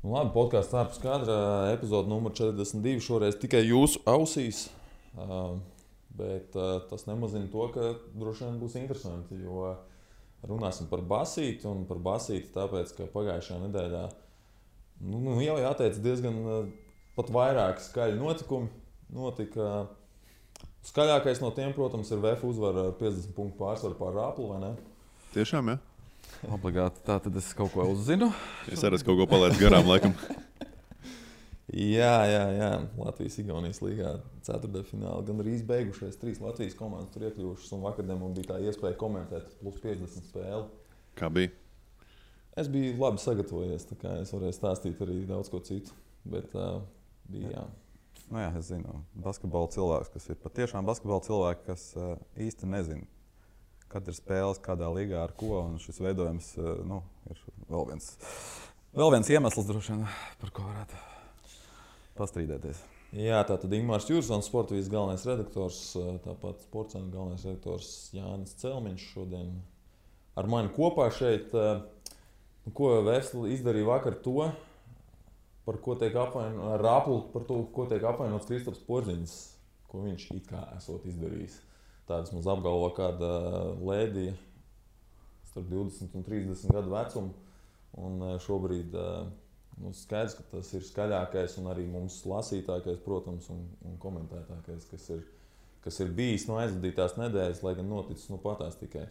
Nu, labi, podkāsts ārpus kadra, epizode numur 42. Šoreiz tikai jūsu ausīs. Bet tas nemazina to, ka droši vien būs interesanti. Jo runāsim par basīti un par basīti, tāpēc ka pagājušajā nedēļā jau jāteic diezgan pat vairāki skaļi notikumi. Notika skaļākais no tiem, protams, ir VF uzvara ar 50 punktu pārsvaru pār Rāplu, vai ne? Tiešām, jā. Obligāti. Tā tad es kaut ko uzzinu. Es arī kaut ko palaidu garām, laikam. Jā. Latvijas-Igaunijas līgā ceturtdaļfinālā gan arī beigušies. 3 Latvijas komandas tur iekļuvušas, un vakardien man bija tā iespēja komentēt plus 50 spēli. Kā bija? Es biju labi sagatavojies, tā kā es varēju stāstīt arī daudz ko citu. Bet bija jā. Nu jā, es zinu, basketbola cilvēks, kas ir patiešām basketbola cilvēki, kas īsti nezina, kad ir spēles, kādā līgā ar ko. Un šis veidojums ir vēl viens iemesls, droši vien, par ko varētu pastrīdēties. Jā, tātad Ingmārs Jursons, sportavīzes galvenais redaktors, tāpat sportcentра galvenais redaktors Jānis Celmiņš šodien ar mani kopā šeit. Ko Vēsli izdarīja vakar to, par ko tiek apvainots Rāplu, par to, ko tiek apvainots Kristaps Porziņš, ko viņš it kā esot izdarījis. Tādas mums apgalvo kāda lēdija starp 20 un 30 gadu vecumu. Un šobrīd skaidrs, ka tas ir skaļākais un arī mums lasītākais, protams, un komentētākais, kas ir bijis no aizvadītās nedēļas, lai gan noticis patās tikai.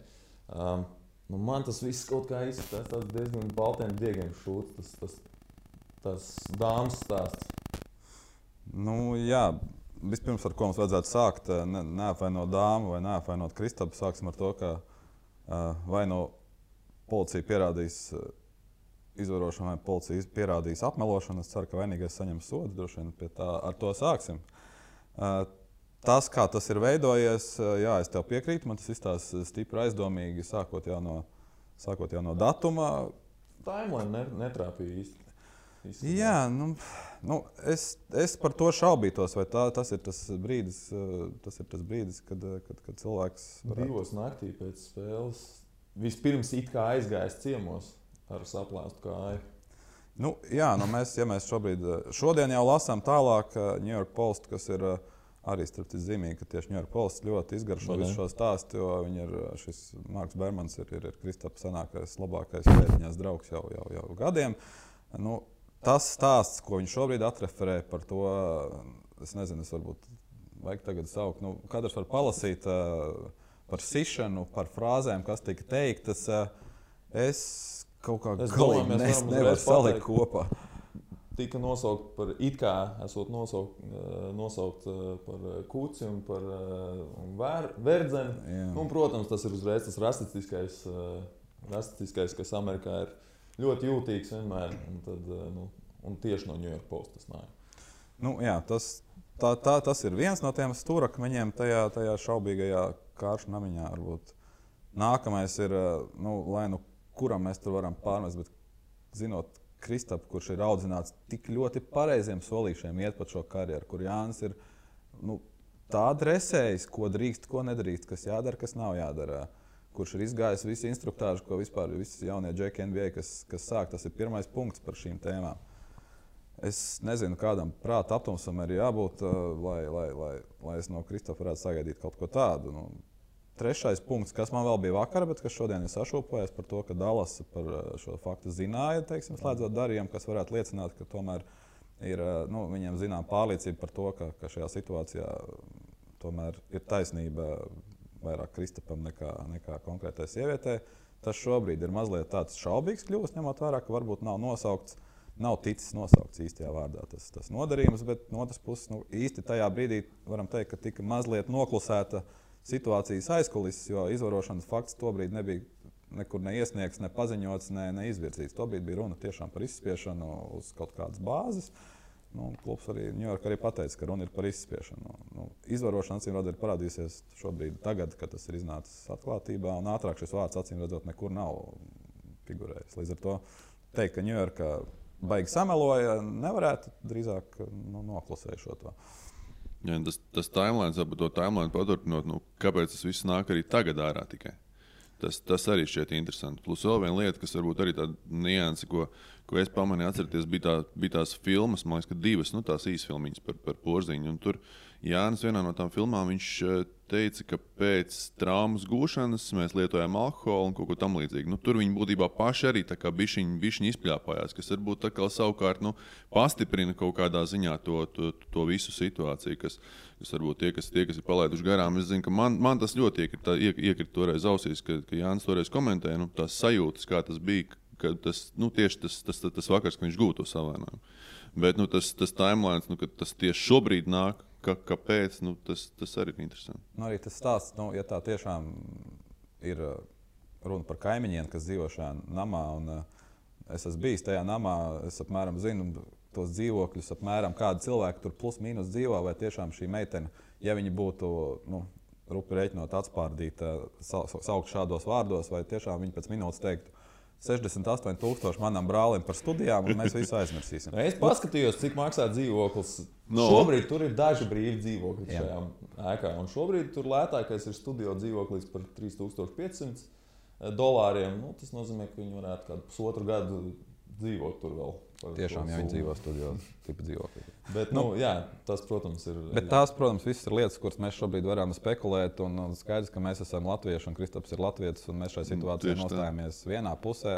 Man tas viss kaut kā izskatās tāds diezgan baltiem diegiem šūts, tas dāmas stāsts. Jā. Vispirms, ar ko mums vajadzētu sākt, neapvainot dāmu vai neapvainot Kristapu, sāksim ar to, ka vai policija pierādīs izvarošanu, vai policija pierādīs apmelošanu. Es ceru, ka vainīgais saņems sodu, droši vien ar to sāksim. Tas, kā tas ir veidojies, jā, es tev piekrītu, man tas izstāsta stipri aizdomīgi, sākot jau no datuma. Timeline netrāpīja īsti. Jā, es par to šaubītos, vai tas ir tas brīdis, kad cilvēks varētu... 2 naktī pēc spēles vispirms it kā aizgājis ciemos ar saplāstu kāju. Mēs šodien jau lasām tālāk New York Post, kas ir arī zīmīgi, ka tieši New York Post ļoti izgaršo visu šo stāstu, jo šis Marks Bermans ir Kristapa senākais, labākais pēdiņās draugs jau gadiem. Tas stāsts, ko viņš šobrīd atreferē par to, es nezinu, es varbūt vajag tagad saukt. Katrs var palasīt par sišanu, par frāzēm, kas tika teiktas. Es kaut kā galīgi nevaru salikt kopā. Tika nosaukt par it kā esot nosaukt par kuci un par verdzeni. Protams, tas ir uzreiz tas rasistiskais, kas Amerikā ir ļoti jūtīgs vienmēr, un tieši no New York Post tas nāk. Tas ir viens no tiem stūrakmeņiem tajā šaubīgajā kāršu namiņā. Varbūt. Nākamais ir, lai kuram mēs tur varam pārmest, bet zinot Kristapu, kurš ir audzināts tik ļoti pareiziem solīšiem iet pa šo karjeru, kur Jānis ir tā dresējis, ko drīkst, ko nedrīkst, kas jādara, kas nav jādara. Kurš ir izgājis visu instruktāžu, ko vispār visi jaunie džeki NBA, kas sāk. Tas ir pirmais punkts par šīm tēmām. Es nezinu, kādam prāta aptumsam ir jābūt, lai es no Kristapa varētu sagaidīt kaut ko tādu. Trešais punkts, kas man vēl bija vakar, bet kas šodien ir sašūpojies par to, ka Dallas par šo faktu zināja, slēdzot darījumu, kas varētu liecināt, ka tomēr ir, viņiem zinām pārliecība par to, ka šajā situācijā tomēr ir taisnība vairāk Kristapam nekā konkrētai sievietei. Tas šobrīd ir mazliet tāds šaubīgs kļuvis, ņemot vērā, ka varbūt nav ticis nosaukts īstajā vārdā tas nodarījums, bet no otras puses īsti tajā brīdī varam teikt, ka tika mazliet noklusēta situācijas aizkulises, jo izvarošanas fakts tobrīd nebija nekur neiesniegts, ne paziņots, ne izvirzīts. Tobrīd bija runa tiešām par izspiešanu uz kaut kādas bāzes. Klubs arī New York arī pateica, ka runa ir par izspiešanu. Izvarošana acīmredzot ir parādījusies šobrīd, tagad, kad tas ir iznācis atklātībā, un ātrāk šis vārds acīmredzot nekur nav figurējis. Līdz ar to teikt, ka New York baigi sameloja, nevarētu drīzāk noklusēju šo to. Jā, tas timelines, varbūt to timeline paturpinot, kāpēc tas viss nāk arī tagad ārā tikai? Tas arī šķiet interesanti. Plus vēl viena lieta, kas varbūt arī tāda nianse, ko es pamanīju, atcerieties, bija tās filmas, man liekas, ka 2 tās īsfilmiņas par Porziņu. Un tur Jānis vienā no tām filmām viņš teica, ka pēc traumas gūšanas mēs lietojām alkoholu un kaut ko tam līdzīgu. Tur viņi būtībā paši arī tā kā bišķiņi izpļāpājās, kas varbūt tā kā savukārt pastiprina kaut kādā ziņā to visu situāciju, kas varbūt tie, kas ir palaiduši garām. Es zinu, ka man tas ļoti iekrita toreiz ausīs, ka Jānis toreiz komentēja tās sajūtas, kā tas bija, ka tieši tas vakars, ka viņš gūta to savainojumu. Bet tas timelines, ka tas tieši šobrīd nāk, kāpēc, tas arī ir interesanti. Arī tas stāsts, ja tā tiešām ir runa par kaimiņiem, kas dzīvo šajā namā, un es esmu bijis tajā namā, es apmēram zinu tos dzīvokļus, apmēram kādi cilvēki tur plus mīnus dzīvo, vai tiešām šī meitene, ja viņi būtu, rupi rēķinot atspārdīta, saukt šādos vārdos, vai tiešām viņi pēc minūtes teiktu, 68,000 manam brālim par studijām, un mēs visu aizmirsīsim. Es paskatījos, cik maksā dzīvoklis. Šobrīd tur ir daži brīvi dzīvokļi šajā ēkā. Un šobrīd tur lētākais ir studio dzīvoklis par $3,500. Tas nozīmē, ka viņi varētu kādu pusotru gadu dzīvot tur vēl. Tiešām, ja viņi dzīvo studio tipa dzīvoklī. Bet, tas, protams, ir... Bet tās, protams, visas ir lietas, kuras mēs šobrīd varam spekulēt, un skaidrs, ka mēs esam latvieši, un Kristaps ir latvietis, un mēs šajā situācijā nostājamies vienā pusē.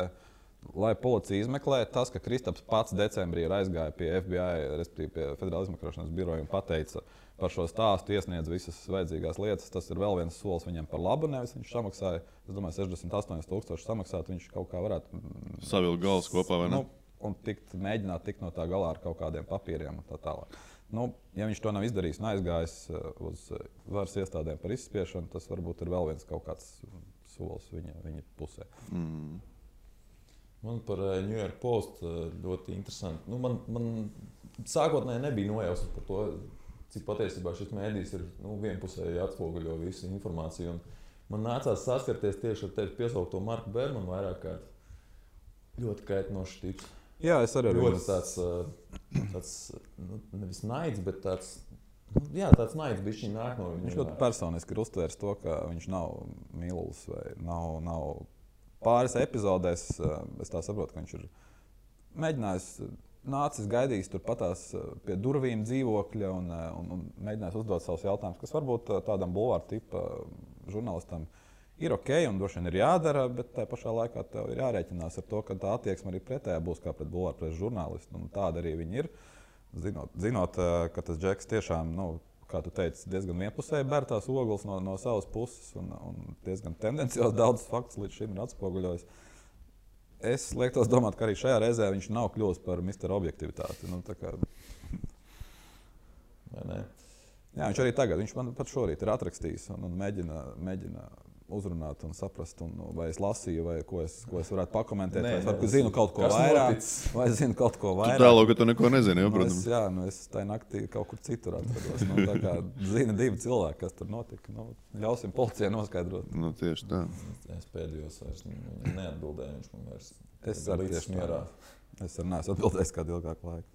Lai policija izmeklē, tas, ka Kristaps pats decembrī ir aizgāja pie FBI, respektīvi pie Federāla izmeklēšanas biroja un pateica par šo stāstu, iesniedz visas vajadzīgās lietas, tas ir vēl viens solis viņam par labu, nevis viņš samaksāja, es domāju, 68,000 samaksāt, viņš kaut kā varētu... Savilkt galvas kopā, vai ne? Un mēģināt tikt no tā galā ar kaut kādiem papīriem un tā tālāk. Ja viņš to nav izdarījis un aizgājis uz varas iestādēm par izspiešanu, tas varbūt ir vēl viens kaut kāds solis viņa pusē. Man par New York Post ļoti interesanti. Man sākotnēji nebija nojausmas par to, cik patiesībā šis mēdījis ir vienpusēji atspoguļo visu informāciju. Un man nācās saskarties tieši ar tevi piesaukto Marku Bermanu vairāk kārt. Ļoti kaitinošs tips. Jā, es arī ļoti tāds nevis naids, bet tāds naids bišķiņ nāk no viņa. Viņš ļoti personiski ir uztvērs to, ka viņš nav mīlulis vai nav pāris epizodēs. Es tā saprotu, ka viņš ir mēģinājis, nācis gaidījis turpatās pie durvīm dzīvokļa un mēģinājis uzdot savus jautājumus, kas varbūt tādam bulvāra tipa žurnālistam ir ok un droši vien ir jādara, bet tajā pašā laikā tev ir jārēķinās ar to, ka tā attieksme arī pretējā būs kā pret bulvāra preses žurnālistu. Tāda arī viņi ir. Zinot, ka tas Džeks tiešām, kā tu teici, diezgan vienpusēji ber tās ogles no savas puses un diezgan tendenciāli daudz faktus līdz šim ir atspoguļojis. Es liektos domāt, ka arī šajā reizē viņš nav kļuvis par Mr. Objektivitāti. Vai ne? Jā, viņš arī tagad, viņš man pat šorīt ir atrakstījis un mēģina uzrunāt un saprast, vai es lasīju, vai ko es varētu pakomentēt, vai es zinu kaut ko vairāk, vai es zinu kaut ko vairāk. Tu tālāk, ka tu neko nezini, protams. Es tajā naktī kaut kur citur atrados. Tā kā zina divi cilvēki, kas tur notika. Ļausim policijai noskaidrot. Tieši tā. Es pēdējos vairs neatbildēju, viņš man vairs. Es arī tieši mierā. Es arī neesmu atbildējis kādu ilgāku laiku.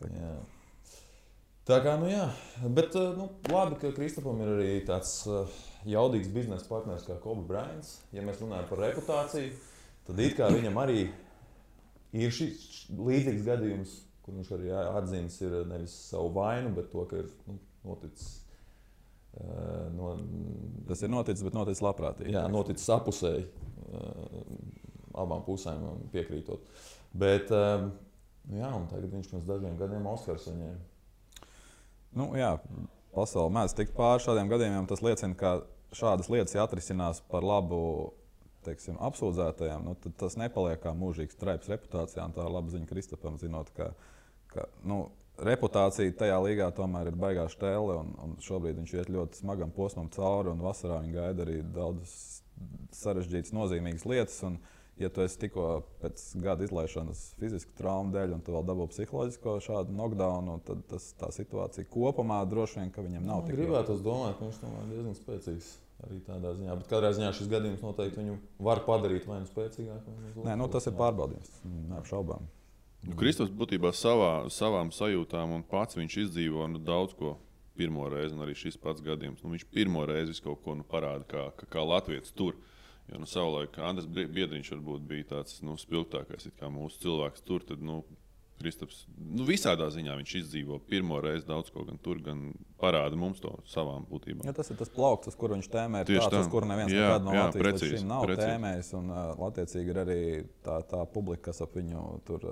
Tā kā, bet labi, ka Kristapam ir arī tāds jaudīgs biznesa partners kā Kobe Bryants. Ja mēs runājam par reputāciju, tad it kā viņam arī ir šis līdzīgs gadījums, kur viņš arī atzīmes ir nevis savu vainu, bet to, ka ir noticis. Tas ir noticis, bet noticis labprātīgi. Jā, noticis apusēji, abām pusēm piekrītot. Bet, un tagad viņš pirms dažiem gadiem Oskars saņēma. Pasaule mēdz tikt pāri šādiem gadījumiem. Tas liecina, ka šādas lietas atrisinās par labu apsūdzētajiem. Tad tas nepaliek kā mūžīgs traips reputācijā. Tā ir laba ziņa Kristapam, zinot, ka reputācija tajā līgā tomēr ir baigā štēle. Un šobrīd viņš iet ļoti smagam posmam cauri. Un vasarā viņa gaida arī daudzas sarežģītas, nozīmīgas lietas. Un, ja tu esi tikko pēc gada izlaišanas fizisku traumu dēļ, un tu vēl dabū psiholoģisko šādu knockdownu, tad tā situācija kopumā droši vien, ka viņam nav tik. Gribētu domāt, ka viņš tomēr diezgan spēcīgs arī tādā ziņā. Bet katrā ziņā šis gadījums noteikti viņu var padarīt vai nu spēcīgāku. Nē, tas ir pārbaudījums. Neapšaubām. Kristaps būtībā savām sajūtām un pats viņš izdzīvo daudz ko pirmo reizi, un arī šis pats gadījums. Viņš pirmo reizi kaut ko parāda kā latvietis tur. Jo savulaik Andris Biedriņš varbūt bija tāds spilgtākais kā mūsu cilvēks. Tur tad, Kristaps visādā ziņā viņš izdzīvo pirmo reizi daudz ko, gan tur, gan parāda mums to savām būtībām. Ja, tas ir tas plaukts, uz kuru viņš tēmē, ir tāds, uz kuru neviens nekad no Latvijas līdz šim nav tēmējis. Un attiecīgi ir arī tā publika, kas ap viņu tur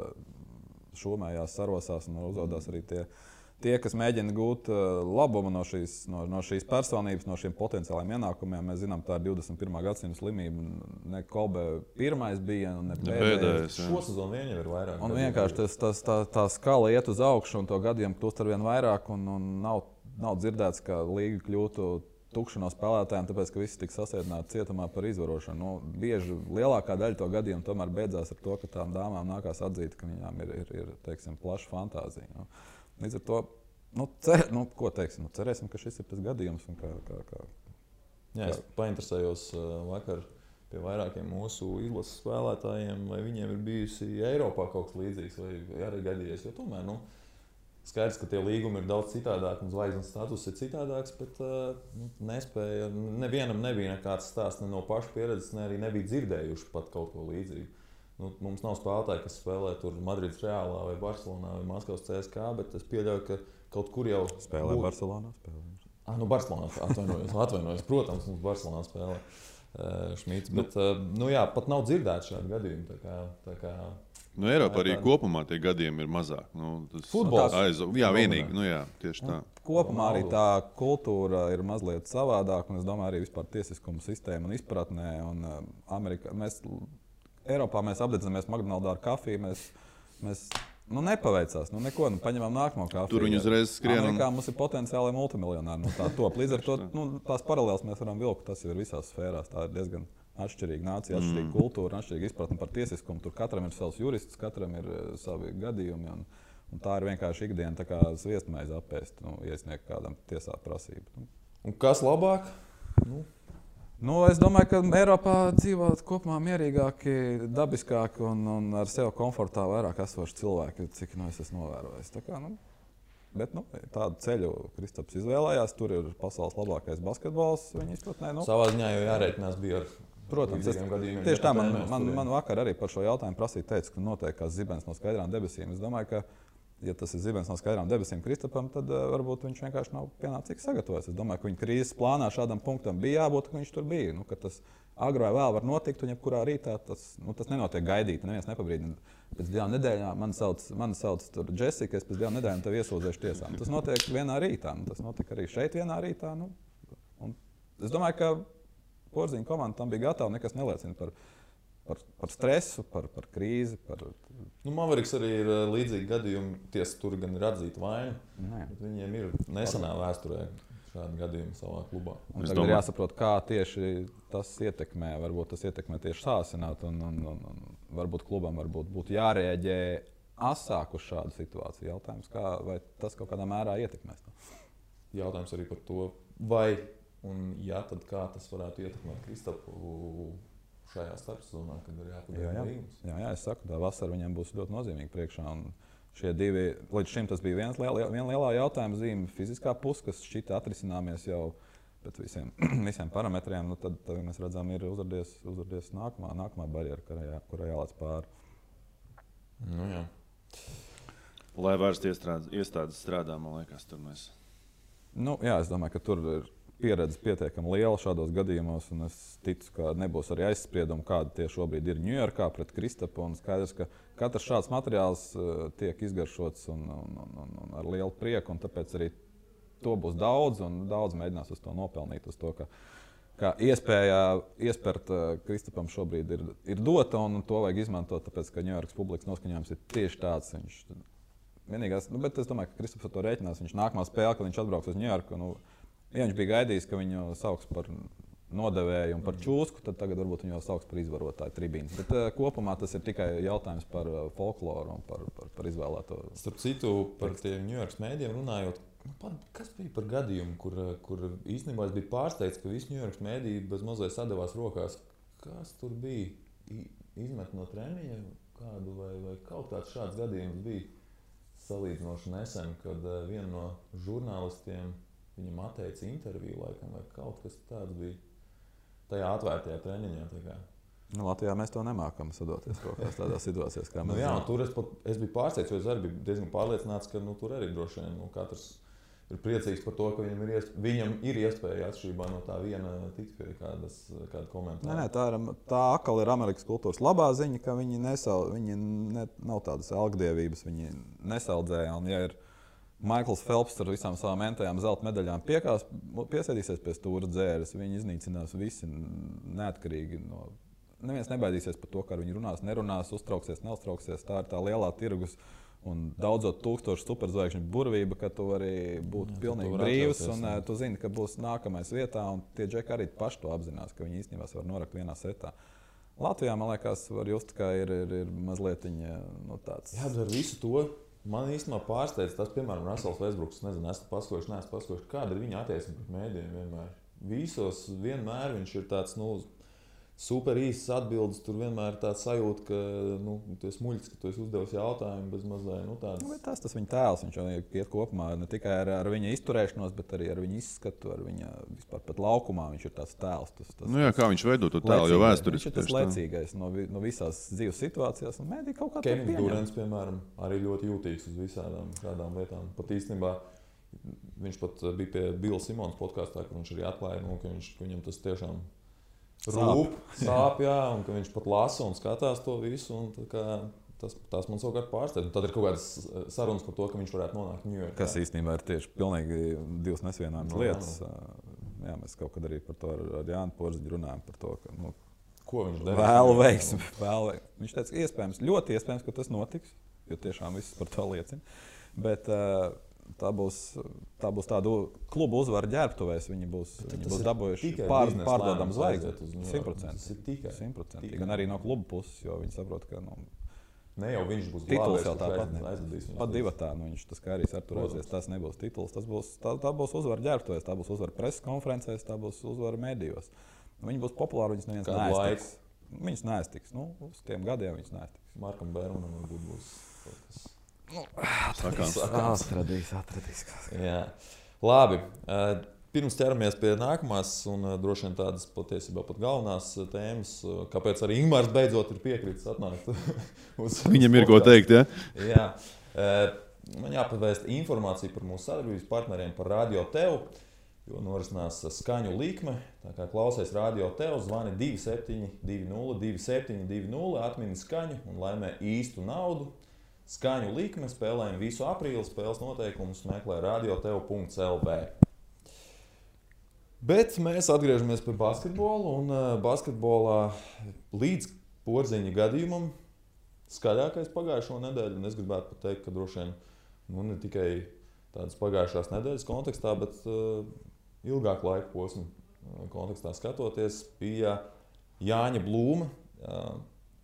šūmējās, sarosās un uzvedās arī tie, kas mēģina gūt labumu no šīs personības, no šiem potenciāliem ienākumiem. Mēs zinām, tā ir 21. gadsimta slimība. Ne Kobe pirmais bija, un ne pēdējais. Šo sezonu vien jau ir vairāk. Un vienkārši tā skala iet uz augšu, un to gadiem kļūst arvien vairāk. Un nav dzirdēts, ka līga kļūtu tukša no spēlētājiem, tāpēc, ka visi tika sasēdināti cietumā par izvarošanu. Bieži lielākā daļa to gadījumu tomēr beidzās ar to, ka tām dāmām nākās atzīt, ka viņām ir teiksim, plaša fantāzija. Līdz ar to, ko teiksim, cerēsim, ka šis ir tas gadījums. Jā, es painteresējos vakar pie vairākiem mūsu izlases spēlētājiem, vai viņiem ir bijusi Eiropā kaut kas līdzīgs, vai arī gadījies. Jo tomēr, skaidrs, ka tie līgumi ir daudz citādāki, un zvaigznes status ir citādāks, bet nespēja, nevienam nebija nekāds stāsts ne no paša pieredzes, ne arī nebija dzirdējuši pat kaut ko līdzīgu. Mums nav spēlētāji, kas spēlē tur Madrides Realā vai Barcelonā vai Maskavas CSKA, bet es pieļauju, ka kaut kur jau spēlē Barcelonā. Barcelonā atvainojos. Protams, mums Barcelonā spēlē Šmīts, bet pat nav dzirdēts šādi gadījumi. Tā kā Eiropā arī kopumā tie gadījumi ir mazāk. Futbols. Jā, vienīgi. Tieši tā. Kopumā arī tā kultūra ir mazliet savādāka, un es domāju, arī vispār tiesiskuma sistēma un izpratnē. Eiropā mēs apdedzinamies McDonald's ar kafiju. Mēs nepaveicās. Neko, paņemam nākamo kafiju. Tur viņi uzreiz skrien. Amerikā mums ir potenciāli multimiljonāri. Tā top. Līdz ar to tās paralēlas mēs varam vilkt. Tas ir visās sfērās. Tā ir diezgan atšķirīga nācija, atšķirīga kultūra, atšķirīga izpratne par tiesiskumu. Tur katram ir savs jurists, katram ir savi gadījumi. Un tā ir vienkārši ikdiena, tā kā sviestmaize apēst, iesniegt kādam tiesā prasību. Un kas labāk? Es domāju, ka Eiropā dzīvo kopumā mierīgāki, dabiskāki un ar sevi komfortā vairāk esoši cilvēki, cik es esmu novērojis. Bet tādu ceļu Kristaps izvēlējās. Tur ir pasaules labākais basketbols viņa izpratnē. Savā ziņā jau jārēķinās bija ar protams, gadījumiem. Tieši tā man vakar arī par šo jautājumu prasīja, teica, ka notiek kā zibens no skaidrām debesīm. Es domāju, ka ja tas ir zibens no skaidrām debesīm Kristapam, tad varbūt viņš vienkārši nav pienācīgi sagatavojies. Es domāju, ka viņa krīzes plānā šādam punktam bija jābūt, ka viņš tur bija. Ka tas agri vai vēl var notikt, un jebkurā rītā tas nenotiek gaidīt. Neviens nepabrīdina. Pēc 2 nedēļām mani sauc tur Jessica, es pēc 2 nedēļām tevi iesūdzēšu tiesām. Tas notiek vienā rītā. Tas notika arī šeit vienā rītā. Es domāju, ka Porziņa komanda tam bija gatava. Nekas neliecina par stresu, par krīzi. Maveriks arī ir līdzīgi gadījumi. Tiesa tur gan ir atzīta vaina, bet viņiem ir nesenā vēsturē šādi gadījumi savā klubā. Tagad ir jāsaprot, kā tieši tas ietekmē. Varbūt tas ietekmē tieši sāsināt, un varbūt klubam būtu jārēģē asāk uz šādu situāciju. Jautājums, vai tas kaut kādā mērā ietekmēs to? Jautājums arī par to, vai un ja, tad kā tas varētu ietekmēt Kristapu šajā starpsezonā, kad ir jāpabeidz līgums. Jā, es saku, tā vasara viņam būs ļoti nozīmīga priekšā. Un šie divi, līdz šim tas bija viena lielā jautājuma zīme, fiziskā puse, kas šķita atrisināmies jau pēc visiem parametriem. Tad mēs redzam, ir uzradies nākamā barjera, kurai jālēc pāri. Jā. Lai vairs iestādes strādā, man liekas, tur mēs. Jā, es domāju, ka tur ir pieredze pietiekami liela šādos gadījumos, un es ticu, ka nebūs arī aizspriedumi, kāda tie šobrīd ir Ņujorkā pret Kristapu. Skaidrs, ka katrs šāds materiāls tiek izgaršots un ar lielu prieku, un tāpēc arī to būs daudz, un daudz mēģinās uz to nopelnīt, uz to, ka iespēja iespērt Kristapam šobrīd ir dota, un to vajag izmantot, tāpēc, ka Ņujorkas publikas noskaņojums ir tieši tāds. Vienīgais, bet es domāju, ka Kristaps ar to rēķinās. Viņš nākamā spēle, kad viņš atbrauks uz Ņujorku, ja viņš bija gaidījis, ka viņu sauks par nodevēju un par čūsku, tad tagad varbūt viņu jau sauks par izvarotāju tribīnes. Bet kopumā tas ir tikai jautājums par folkloru un par izvēlēto. Starp citu, par tiem Ņujorkas mēdījiem runājot, kas bija par gadījumu, kur īstenībā es biju pārsteigts, ka visi Ņujorkas mēdīji bez mazliet sadavās rokās. Kas tur bija? Izmet no treniņa kādu vai kaut kāds šāds gadījums bija salīdzinoši nesen, kad viena no žurnālistiem viņam atteica interviju, laikam, vai kaut kas tāds bija. tajā atvērtajā treniņā. Latvijā mēs to nemākam sadoties kaut kādās tādās situācijās, kā mēs zinām. Tur es biju pārsteigts, jo es arī biju diezgan pārliecināts, ka tur arī droši vien katrs ir priecīgs par to, ka viņam ir iespēja atšķirībā no tā viena tikt pie kāda komentāra. Tā atkal ir Amerikas kultūras labā ziņa, ka viņi nav tādas algdievības, viņi nesaudzēja. Un, ja ir Maikls Felps ar visām savām entajām zelta medaļām piesēdīsies pie stūra dzēres, viņi iznīcinās visi neatkarīgi no. Neviens nebaidīsies par to, kā viņi runās, nerunās, uztrauksies, neuztrauksies. Tā ir tā lielā tirgus un daudzot tūkstošu superzvaigžņu burvība, ka tu vari būt pilnīgi brīvs un tu zini, ka būs nākamais vietā. Un tie džeki arī paši to apzinās, ka viņi īstenībā var norakt vienā setā. Latvijā, man liekas, var just, ka ir mazliet tāds. Jā, bet ar visu to man īstenībā pārsteidz tas, piemēram, Russells Westbrooks. Nezinu, esmu paskojuši, kāda ir viņa attieksme pret mēdījiem vienmēr. Visos vienmēr viņš ir tāds, super īsas atbildes, tur vienmēr ir tāds sajūta, ka tu esi muļķis, ka tu esi uzdevis jautājumu bez mazliet tāds. Tas viņa tēls, viņš jau iet kopumā ne tikai ar viņa izturēšanos, bet arī ar viņa izskatu, ar viņa vispār pat laukumā viņš ir tāds tēls. Kā viņš veido to tēlu, jo vēsturiski. Viņš ir tas lecīgais no visās dzīves situācijās, un mēdī kaut kā Kevins Durants, piemēram, arī ļoti jūtīgs uz visādām šādām lietām. Pat īstenībā viņš pat bija pie Billa Simons podkastā, ka viņš arī atklāja, ka viņam tas tiešām sāp, jā, un ka viņš pat lasa un skatās to visu. Tas man savukārt pārsteidz. Tad ir kaut kādas sarunas par to, ka viņš varētu nonākt Ņujorkā. Kas īstenībā ir tieši pilnīgi divas nesvienāmas lietas. Jā, mēs kaut kad arī par to ar Jānu Porziņu runājam. Par to, ka, ko viņš dara? Vēlu veiksmi. Viņš teica, ļoti iespējams, ka tas notiks, jo tiešām viss par to liecina. Bet tā būs tāda klubu uzvara ģērbtuvēs. Viņi būs dabūjuši pārdodamu zvaigzni. 100%. Gan arī no klubu puses, jo viņi saprot, ka ne jau viņš būs tituls jau tāpat. Pat divatā viņš tas kā arī sarturēsies. Tas nebūs tituls. Tā būs uzvara ģērbtuvēs, tā būs uzvara preses konferencēs, tā būs uzvara medijos. Viņi būs populāri, viņas neviens neaiztiks. Viņas neaiztiks. Uz tiem gadiem viņas neaiztiks. Markam Bērmanam varbūt būs kaut kas. Atradīs. Jā. Labi. Pirms ķeramies pie nākamās un droši vien tādas patiesībā pat galvenās tēmas, kāpēc arī Ingmārs beidzot ir piekritis atnākt uz Viņam ir ko teikt, ja? Jā. Man jāpavēst informāciju par mūsu sadarbības partneriem par Radio Tev, jo norisinās skaņu likme. Tā kā klausies Radio Tev, zvani 2720, atmini skaņu un laimē īstu naudu. Skaņu likme, spēlējam visu aprīli, spēles noteikumus meklē radiotev.lv. Bet mēs atgriežamies pie basketbola, un basketbolā līdz Porziņa gadījumam skaļākais pagājušo nedēļu, un es gribētu pat teikt, ka droši vien ne tikai tādas pagājušās nedēļas kontekstā, bet ilgāku laiku posmu kontekstā skatoties, bija Jāņa Blūma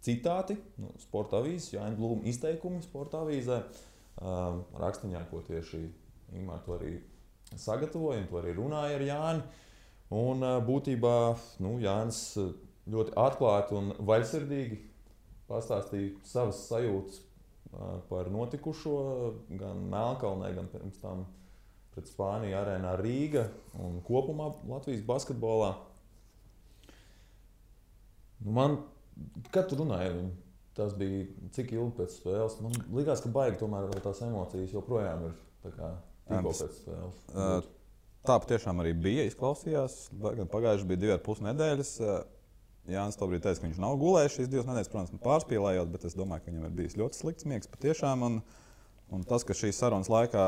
citāti, sporta avīzes, Jāņa Blūma izteikumi sporta avīzē, rakstiņā, ko tieši Ingmār to arī sagatavoja, un to arī runāja ar Jāni. Un būtībā Jānis ļoti atklāti un vaļsirdīgi pastāstīja savas sajūtas par notikušo gan Melnkalnē, gan pirms tam pret Spāniju arēnā Rīga un kopumā Latvijas basketbolā. Kad tu runāji ar viņu, tas bija cik ilgi pēc spēles? Man likās, ka baigi tomēr tās emocijas joprojām ir tikko pēc spēles. Tā patiešām arī bija, izklausījās. Pagājuši bija 2,5 nedēļas. Jānis tobrīd teica, ka viņš nav gulējis šīs 2 nedēļas, protams, pārspīlējot, bet es domāju, ka viņam ir bijis ļoti slikts miegs patiešām. Un tas, ka šīs sarunas laikā,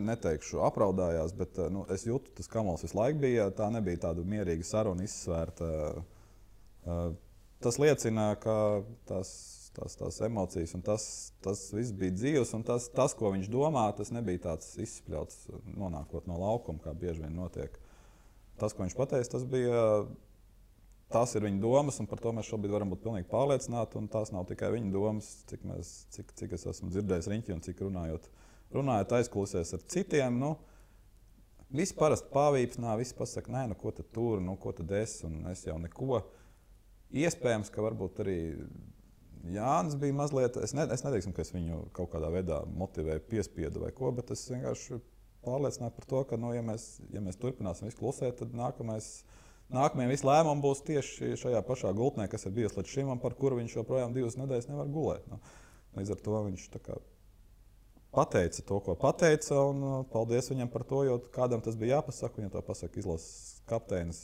neteikšu apraudājās, bet es jūtu, tas kamols visu laiku bija, tā nebija tāda mierīga saruna izsvērta. Tas liecina, ka tās emocijas un tas viss bija dzīves, un tas, ko viņš domā, tas nebija tāds izspļauts nonākot no laukuma, kā bieži vien notiek. Tas, ko viņš pateica, tās ir viņa domas, un par to mēs šobrīd varam būt pilnīgi pārliecināti, un tās nav tikai viņa domas, cik es esmu dzirdējis riņķi un cik runājot aizkulisēs ar citiem. Visi parasti pāvīpsnā, visi pasaka, nē, ko tad tur, ko tad es, un es jau neko. Iespējams, ka varbūt arī Jānis bija mazliet, es neteiksim, ka es viņu kaut kādā veidā motivēju, piespiedu vai ko, bet es vienkārši pārliecināju par to, ka, ja mēs turpināsim visu klusēt, tad nākamais nākamie visi lēmumi būs tieši šajā pašā gultnē, kas ir bijusi līdz šim, un par kuru viņš joprojām 2 nedēļas nevar gulēt. Nu, līdz ar to viņš pateica to, ko pateica, un paldies viņam par to, jo kādam tas bija jāpasaka, viņam to pasaka izlases kapteinis,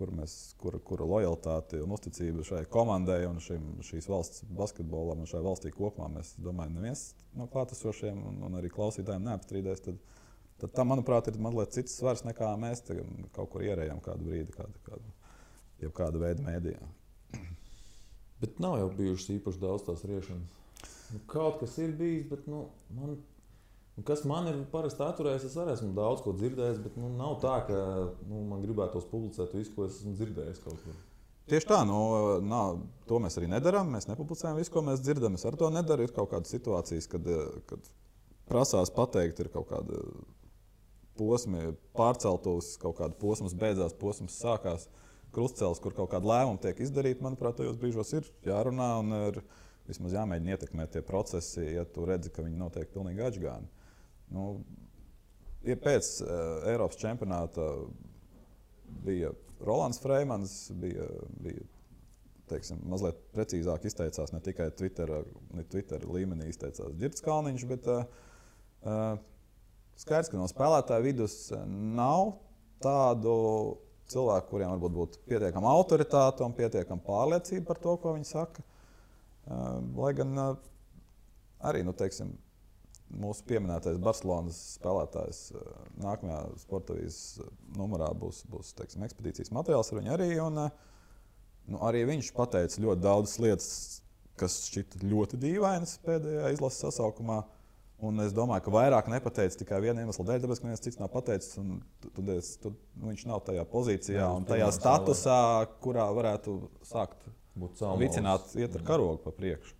kura lojalitāti un uzticība šai komandai un šīs valsts basketbolam un šai valstī kopumā, mēs domājam, neviens no klātesošiem un arī klausītājiem neapstrīdēs, tad tam, manuprāt, ir mazliet cits svars nekā mēs kaut kur ierējām kādu brīdi, kādu veidu mēdījā. Bet nav jau bijušas īpaši daudz tās riešanas. Kaut kas ir bijis, bet kas man ir parasti atturējis, es arī esmu daudz ko dzirdējis, bet nav tā, ka man gribētos publicēt visu, ko es esmu dzirdējis kaut kur. Tieši tā, to mēs arī nedarām. Mēs nepublicējam visu, ko mēs dzirdam. Es ar to nedaru. Ir kaut kādas situācijas, kad prasās pateikt, ir kaut kāda posmi pārceltos, kaut kāda posms beidzās, posms sākās, krustcēlis, kur kaut kāda lēmuma tiek izdarīta. Manuprāt, tajos brīžos ir jārunā un ir vismaz jāmēģina ietekmēt tie procesi, ja tu redzi, ka viņi notiek pilnīgi atžgāni. Ir pēc Eiropas čempionāta bija Rolands Freimans, bija mazliet precīzāk izteicās, ne tikai Twitter līmenī izteicās Ģirds Kalniņš, bet skaidrs, ka no spēlētāju vidus nav tādu cilvēku, kuriem varbūt būtu pietiekama autoritāte un pietiekama pārliecība par to, ko viņi saka. Lai gan arī, mūsu pieminētais Barcelonas spēlētājs nākamajā sportavīzes numurā būs ekspedīcijas materiāls ar viņu arī. Un arī viņš pateica ļoti daudzas lietas, kas šķita ļoti dīvainas pēdējā izlases sasaukumā. Un es domāju, ka vairāk nepateica tikai viena iemesla dēļ, tāpēc, ka neviens cits nav pateicis. Viņš nav tajā pozīcijā un tajā statusā, kurā varētu sākt vicināt, iet ar karogu pa priekšu.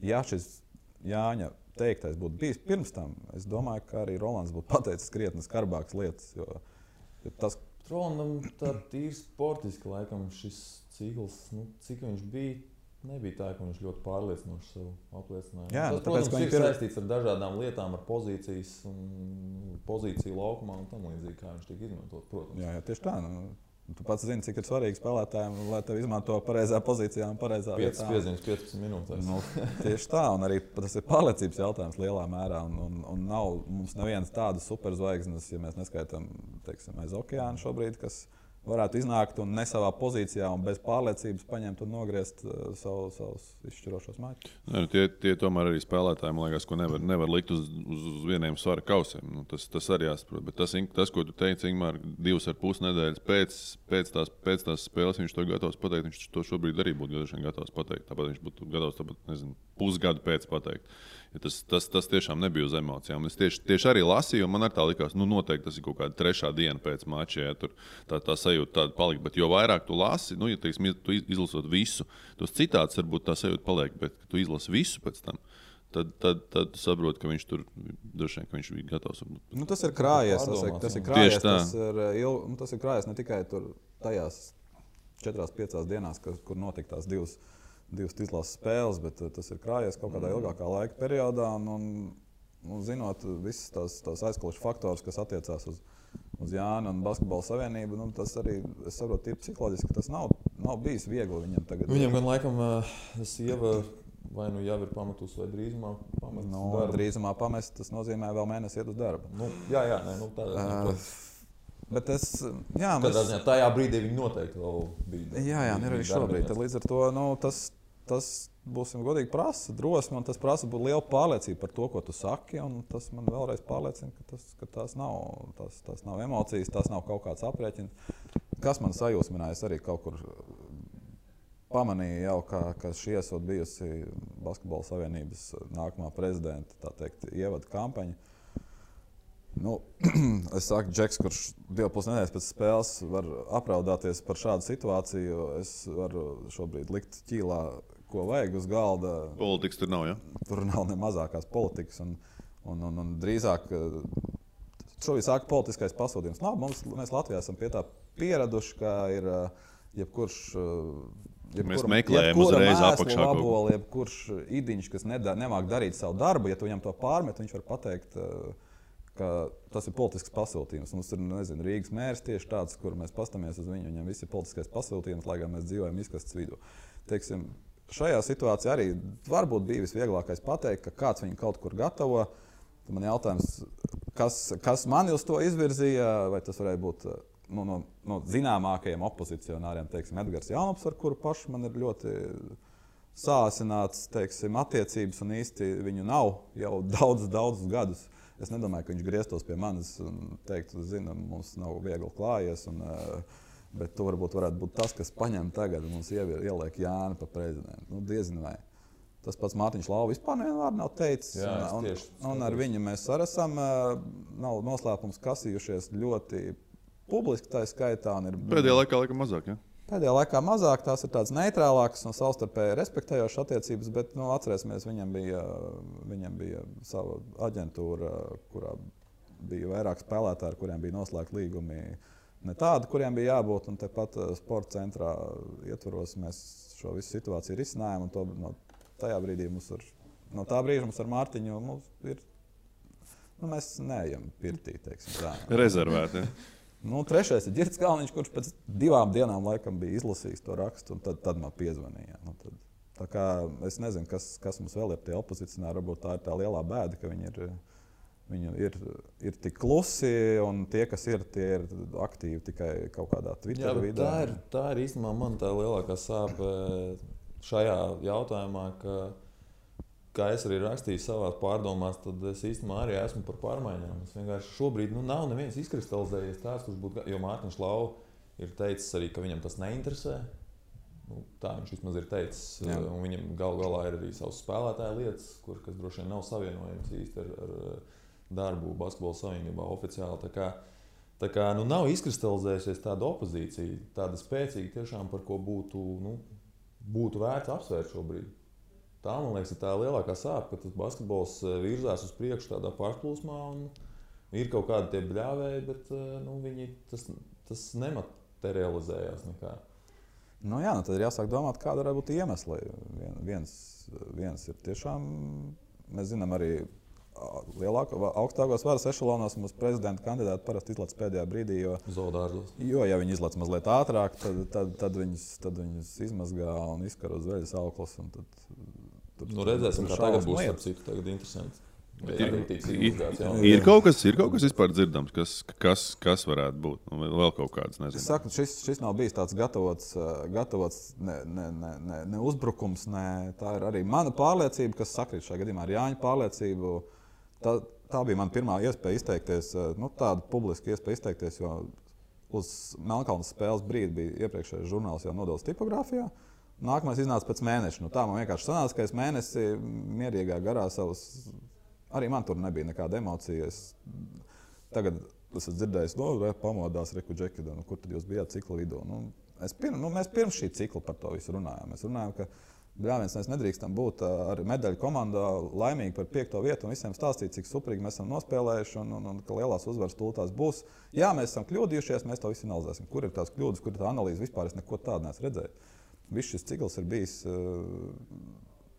Ja šis Jāņa teiktais būtu bijis pirms tam, es domāju, ka arī Rolands būtu pateicis krietni skarbākas lietas. Jo tas Rolandam tā tīri sportiski laikam šis cikls, cik viņš bija, nebija tā, ka viņš ļoti pārliecinoši sev apliecināja. Jā, tas, protams, ir saistīts ar dažādām lietām, ar pozīciju laukumā un tam līdzīgi, kā viņš tiek izmantot, protams. Jā, tieši tā. Tu pats zini, cik ir svarīgi spēlētājiem, lai tevi izmanto pareizā pozīcijā un pareizā vietā. 5 piezīmes 15 minūtēs. Tieši tā, un arī tas ir pārliecības jautājums lielā mērā. Un nav mums nevienas tādas superzvaigznes, ja mēs neskaitām aiz okeāna šobrīd, kas varētu iznākt un ne savā pozīcijā un bez pārliecības paņemt un nogriezt savus izšķirošos mačus. Tie tomēr arī spēlētāji, man liekas, ko nevar likt uz vieniem svara kausiem. Tas arī jāsaprot. Bet tas, ko tu teici, Ingmār, 2,5 nedēļas pēc tās spēles, viņš to gatavs pateikt. Viņš to šobrīd arī būtu gatavs pateikt. Tāpat viņš būtu gatavs, pusgadu pēc pateikt. Ja tas tiešām nebija uz emocijām. Es tieši arī lasīju, un man arī tā likās, noteikti tas ir kaut kāda 3. diena pēc mača, ja tur tā sajūta tāda palika. Bet jo vairāk tu lasi, ja tu izlasot visu, tos citāts varbūt tā sajūta paliek, bet tu izlasi visu pēc tam, tad tu saproti, ka viņš tur droši vien, ka viņš bija gatavs. Tas ir krājies, tas ir krājies ne tikai tur tajās 4-5 dienās, kur notika tās divas izlases spēles, bet tas ir krājies kaut kādā ilgākā laika periodā. Un zinot visas tās aizkulisku faktors, kas attiecās uz Jānu un Basketbola savienību, tas arī, es saprotu, ir psiholoģiski, ka tas nav bijis viegli viņam tagad. Viņam gan laikam sieva vai jau ir pametusi, vai drīzumā pamest darbu. Drīzumā pamest, tas nozīmē vēl mēnesi iet uz darbu. Tādā. Bet tajā brīdī viņi noteikti vēl bija. Jā, arī šobrīd. Tad līdz ar to tas būsim godīgi prasa drosmi, un tas prasa būt liela pārliecība par to, ko tu saki. Tas man vēlreiz pārliecina, ka tās nav emocijas, tās nav kaut kāds aprēķins. Kas man sajūsmināja, es arī kaut kur pamanīju jau, ka šī esot bijusi Basketbola savienības nākamā prezidenta, tā teikt, ievada kampaņa. Es saku, Džeks, kurš 2,5 nedēļas pēc spēles var apraudāties par šādu situāciju, es varu šobrīd likt ķīlā, ko vajag uz galda. Politikas tur nav, ja? Tur nav ne mazākās politikas. Un drīzāk šobrīd sāka politiskais pasūtījums. Mēs Latvijā esam pie tā pieraduši, ka ir jebkurš mēs meklējam uzreiz apakšā. Jebkurš idiņš, kas nemāk darīt savu darbu, ja tu viņam to pārmet, viņš var pateikt, ka tas ir politisks pasūtījums. Mums ir, nezinu, Rīgas mērs tieši tāds, kur mēs pastamies uz viņu, viņam viss ir politiskais pasūtījums, lai gan mēs dzīvojam izkastes vidū. Teiksim, šajā situācijā arī varbūt bija visvieglākais pateikt, ka kāds viņu kaut kur gatavo. Tad man jautājums, kas mani uz to izvirzīja, vai tas varēja būt no zināmākajiem opozicionāriem, teiksim, Edgars Jaunops, ar kuru pašu man ir ļoti sāsināts, teiksim, attiecības un īsti viņu nav jau daudzus gadus. Es nedomāju, ka viņš grieztos pie manis un teiktu, zinu, mums nav viegli klājies, bet to varētu būt tas, kas paņem tagad un mums ieliek Jāni pa prezidentu. Diezin vai. Tas pats Mārtiņš Lauva vispār nevienu vārdu nav teicis. Un ar viņu mēs arī esam, nav noslēpums, kasījušies ļoti publiski tā skaitā. Pēdējā laikā mazāk, ja? Pēdējā laikā mazāk, tās ir tādas neitrālākas un savstarpēji respektējošas attiecības, bet atcerēsimies, viņam bija sava aģentūra, kurā bija vairāk spēlētāji, ar kuriem bija noslēgti līgumi ne tādi, kuriem bija jābūt. Un tepat sporta centrā ietvaros mēs šo visu situāciju risinājām. Tajā brīdī no tā brīža mums ar Mārtiņu ir, mēs neejam pirtī, teiksim tā. Rezervēti, ja? Trešais ir Ģirds Kalniņš, kurš pēc 2 dienām laikam bija izlasījis to rakstu, un tad man piezvanīja. Tā kā es nezinu, kas mums vēl ir tie opozicionāri, varbūt tā ir tā lielā bēda, ka viņi ir tik klusi, un tie, kas ir, tie ir aktīvi tikai kaut kādā Twitter vidē. Tā ir īstenībā man tā lielākā sāpe šajā jautājumā, kā es arī rakstīju savās pārdomās, tad es īstenībā arī esmu par pārmaiņām. Es vienkārši šobrīd nav neviens izkristalizējies tāds, kurš būtu, jo Mārtiņš Lauva ir teicis arī, ka viņam tas neinteresē. Tā viņš vismaz ir teicis. Un viņam galā ir arī savas spēlētāja lietas, kas droši vien nav savienojams īsti ar darbu basketbola savienībā oficiāli. Tā kā nav izkristalizējusies tāda opozīcija, tāda spēcīga tiešām, par ko būtu vērts apsvērt šobrīd. Tā, man liekas, ir tā lielākā sāpe, ka tas basketbols virzās uz priekšu tādā pārplūsmā un ir kaut kādi tie bļāvēji, bet tas nematerializējās nekā. Tad ir jāsāk domāt, kāda varētu būt iemesli. Viens ir tiešām, mēs zinām arī augstākos varas ešalonos mums prezidenta kandidāti parasti izlaiž pēdējā brīdī, jo ja viņi izlaiž mazliet ātrāk, tad viņus izmazgā un izkar uz veļas auklas. Redzēsim, kā tagad būs citu, tagad interesanti. Ir kaut kas vispār dzirdams, kas varētu būt, vēl kaut kāds, nezinu. Es saku, šis nav bijis tāds gatavots ne uzbrukums, tā ir arī mana pārliecība, kas sakrīt šajā gadījumā ar Jāņa pārliecību. Tā bija mana pirmā iespēja izteikties, tāda publiska iespēja izteikties, jo uz Melnkalnes spēles brīdi bija iepriekšējais žurnāls jau nodevis tipogrāfijā. Nākamais iznāca pēc mēneša. Tā man vienkārši sanāca, ka es mēnesi mierīgā garā savas, arī man tur nebija nekāda emocija. Tagad esmu dzirdējis, pamodās Reku Džekida, kur tad jūs bijāt cikla vidū. Mēs pirms šī cikla par to visu runājām. Mēs runājām, ka mēs nedrīkstam būt ar medaļu komandā laimīgi par 5. vietu un visiem stāstīt, cik suprīgi mēs esam nospēlējuši un ka lielās uzvaras tūlītās būs. Jā, mēs esam kļūdījušies, mēs to visu analizēsim. Kur ir tās kļūdas, kur ir tā analīze? Vispār es neko tādu neesmu redzējis. Viss šis cikls ir bijis,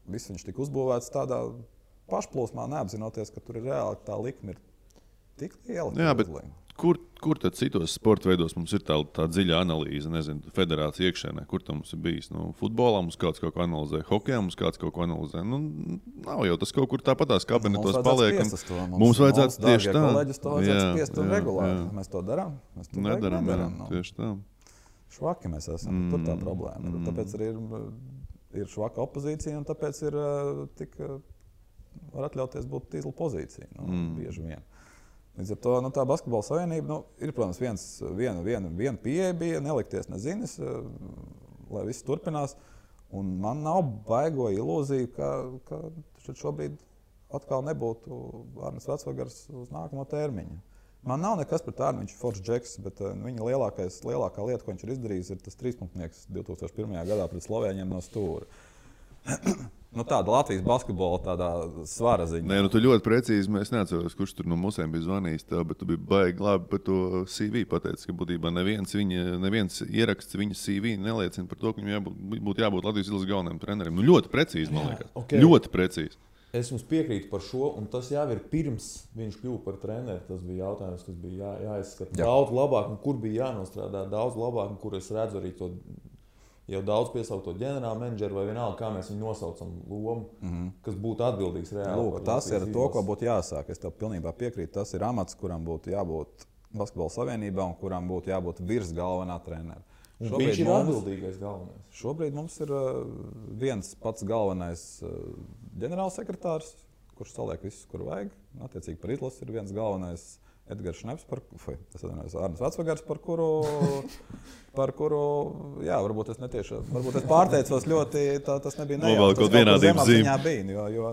viss viņš tika uzbūvēts tādā pašplūsmā, neapzinoties, ka tur ir reāli tā likme ir tik liela. Jā, bet kur tad citos sporta veidos mums ir tā dziļa analīze, nezinu, federācija iekšēnē, kur tam mums ir bijis? Futbolā mums kāds kaut ko analizē, hokejā mums kāds kaut ko analizē. Nav jau tas kaut kur tāpatās kabinetos paliek. Mums vajadzētu tieši tā. Kolēģis to vajadzētu spiest un regulāri. Mēs to darām? Mēs to nedaram. Tieši tā. Švaki mēs esam, tur tā problēma. Tāpēc arī ir švaka opozīcija un tāpēc ir var atļauties būt tīzla pozīcija, bieži vien. Līdz ar to tā basketbola savienība ir, protams, viena pieeja bija, nelikties nezinis, lai viss turpinās. Un man nav baigo ilūziju, ka šobrīd atkal nebūtu Arnis Vecvagars uz nākamo termiņu. Man nav nekas pret Arni, viņš ir foršs džeks, bet viņa lielākā lieta, ko viņš ir izdarījis, ir tas 3-punktnieks 2001. gadā pret Slovēņiem no stūra. Tāda Latvijas basketbola tādā svara ziņa. Nē, tu ļoti precīzi, es neatceros, kurš tur no mūsiem bija zvanījis tev, bet tu biji baigi labi par to CV pateicis, ka būtībā neviens ieraksts viņa CV neliecina par to, ka viņam būtu jābūt Latvijas izlases galvenajam trenerim. Ļoti precīzi, man liekas. Okay. Ļoti precīzi. Es jums piekrītu par šo, un tas jau ir pirms viņš kļuva par treneri. Tas bija jautājums, kas bija jāizskata daudz labāk, un kur bija jānostrādā daudz labāk, un kur es redzu arī to jau daudz piesaukto ģenerāla menedžeru vai vienalga, kā mēs viņu nosaucam lomu, kas būtu atbildīgs reāli. Lūk, tas ir to, ko būtu jāsāk. Es tev pilnībā piekrītu. Tas ir amats, kuram būtu jābūt Basketbola savienībā un kuram būtu jābūt virs galvenā trenera. Viņš ir atbildīgais galvenais. Šobrīd mums ir viens pats galvenais ģenerālsekretārs, kurš saliek visus, kur vajag. Attiecīgi par izlasi ir viens galvenais Edgars Šneps, Arnis Vecvagars, par kuru, jā, varbūt es pārteicos ļoti, tas nebija nejauši. Kaut vienādības zīme. Bija, jo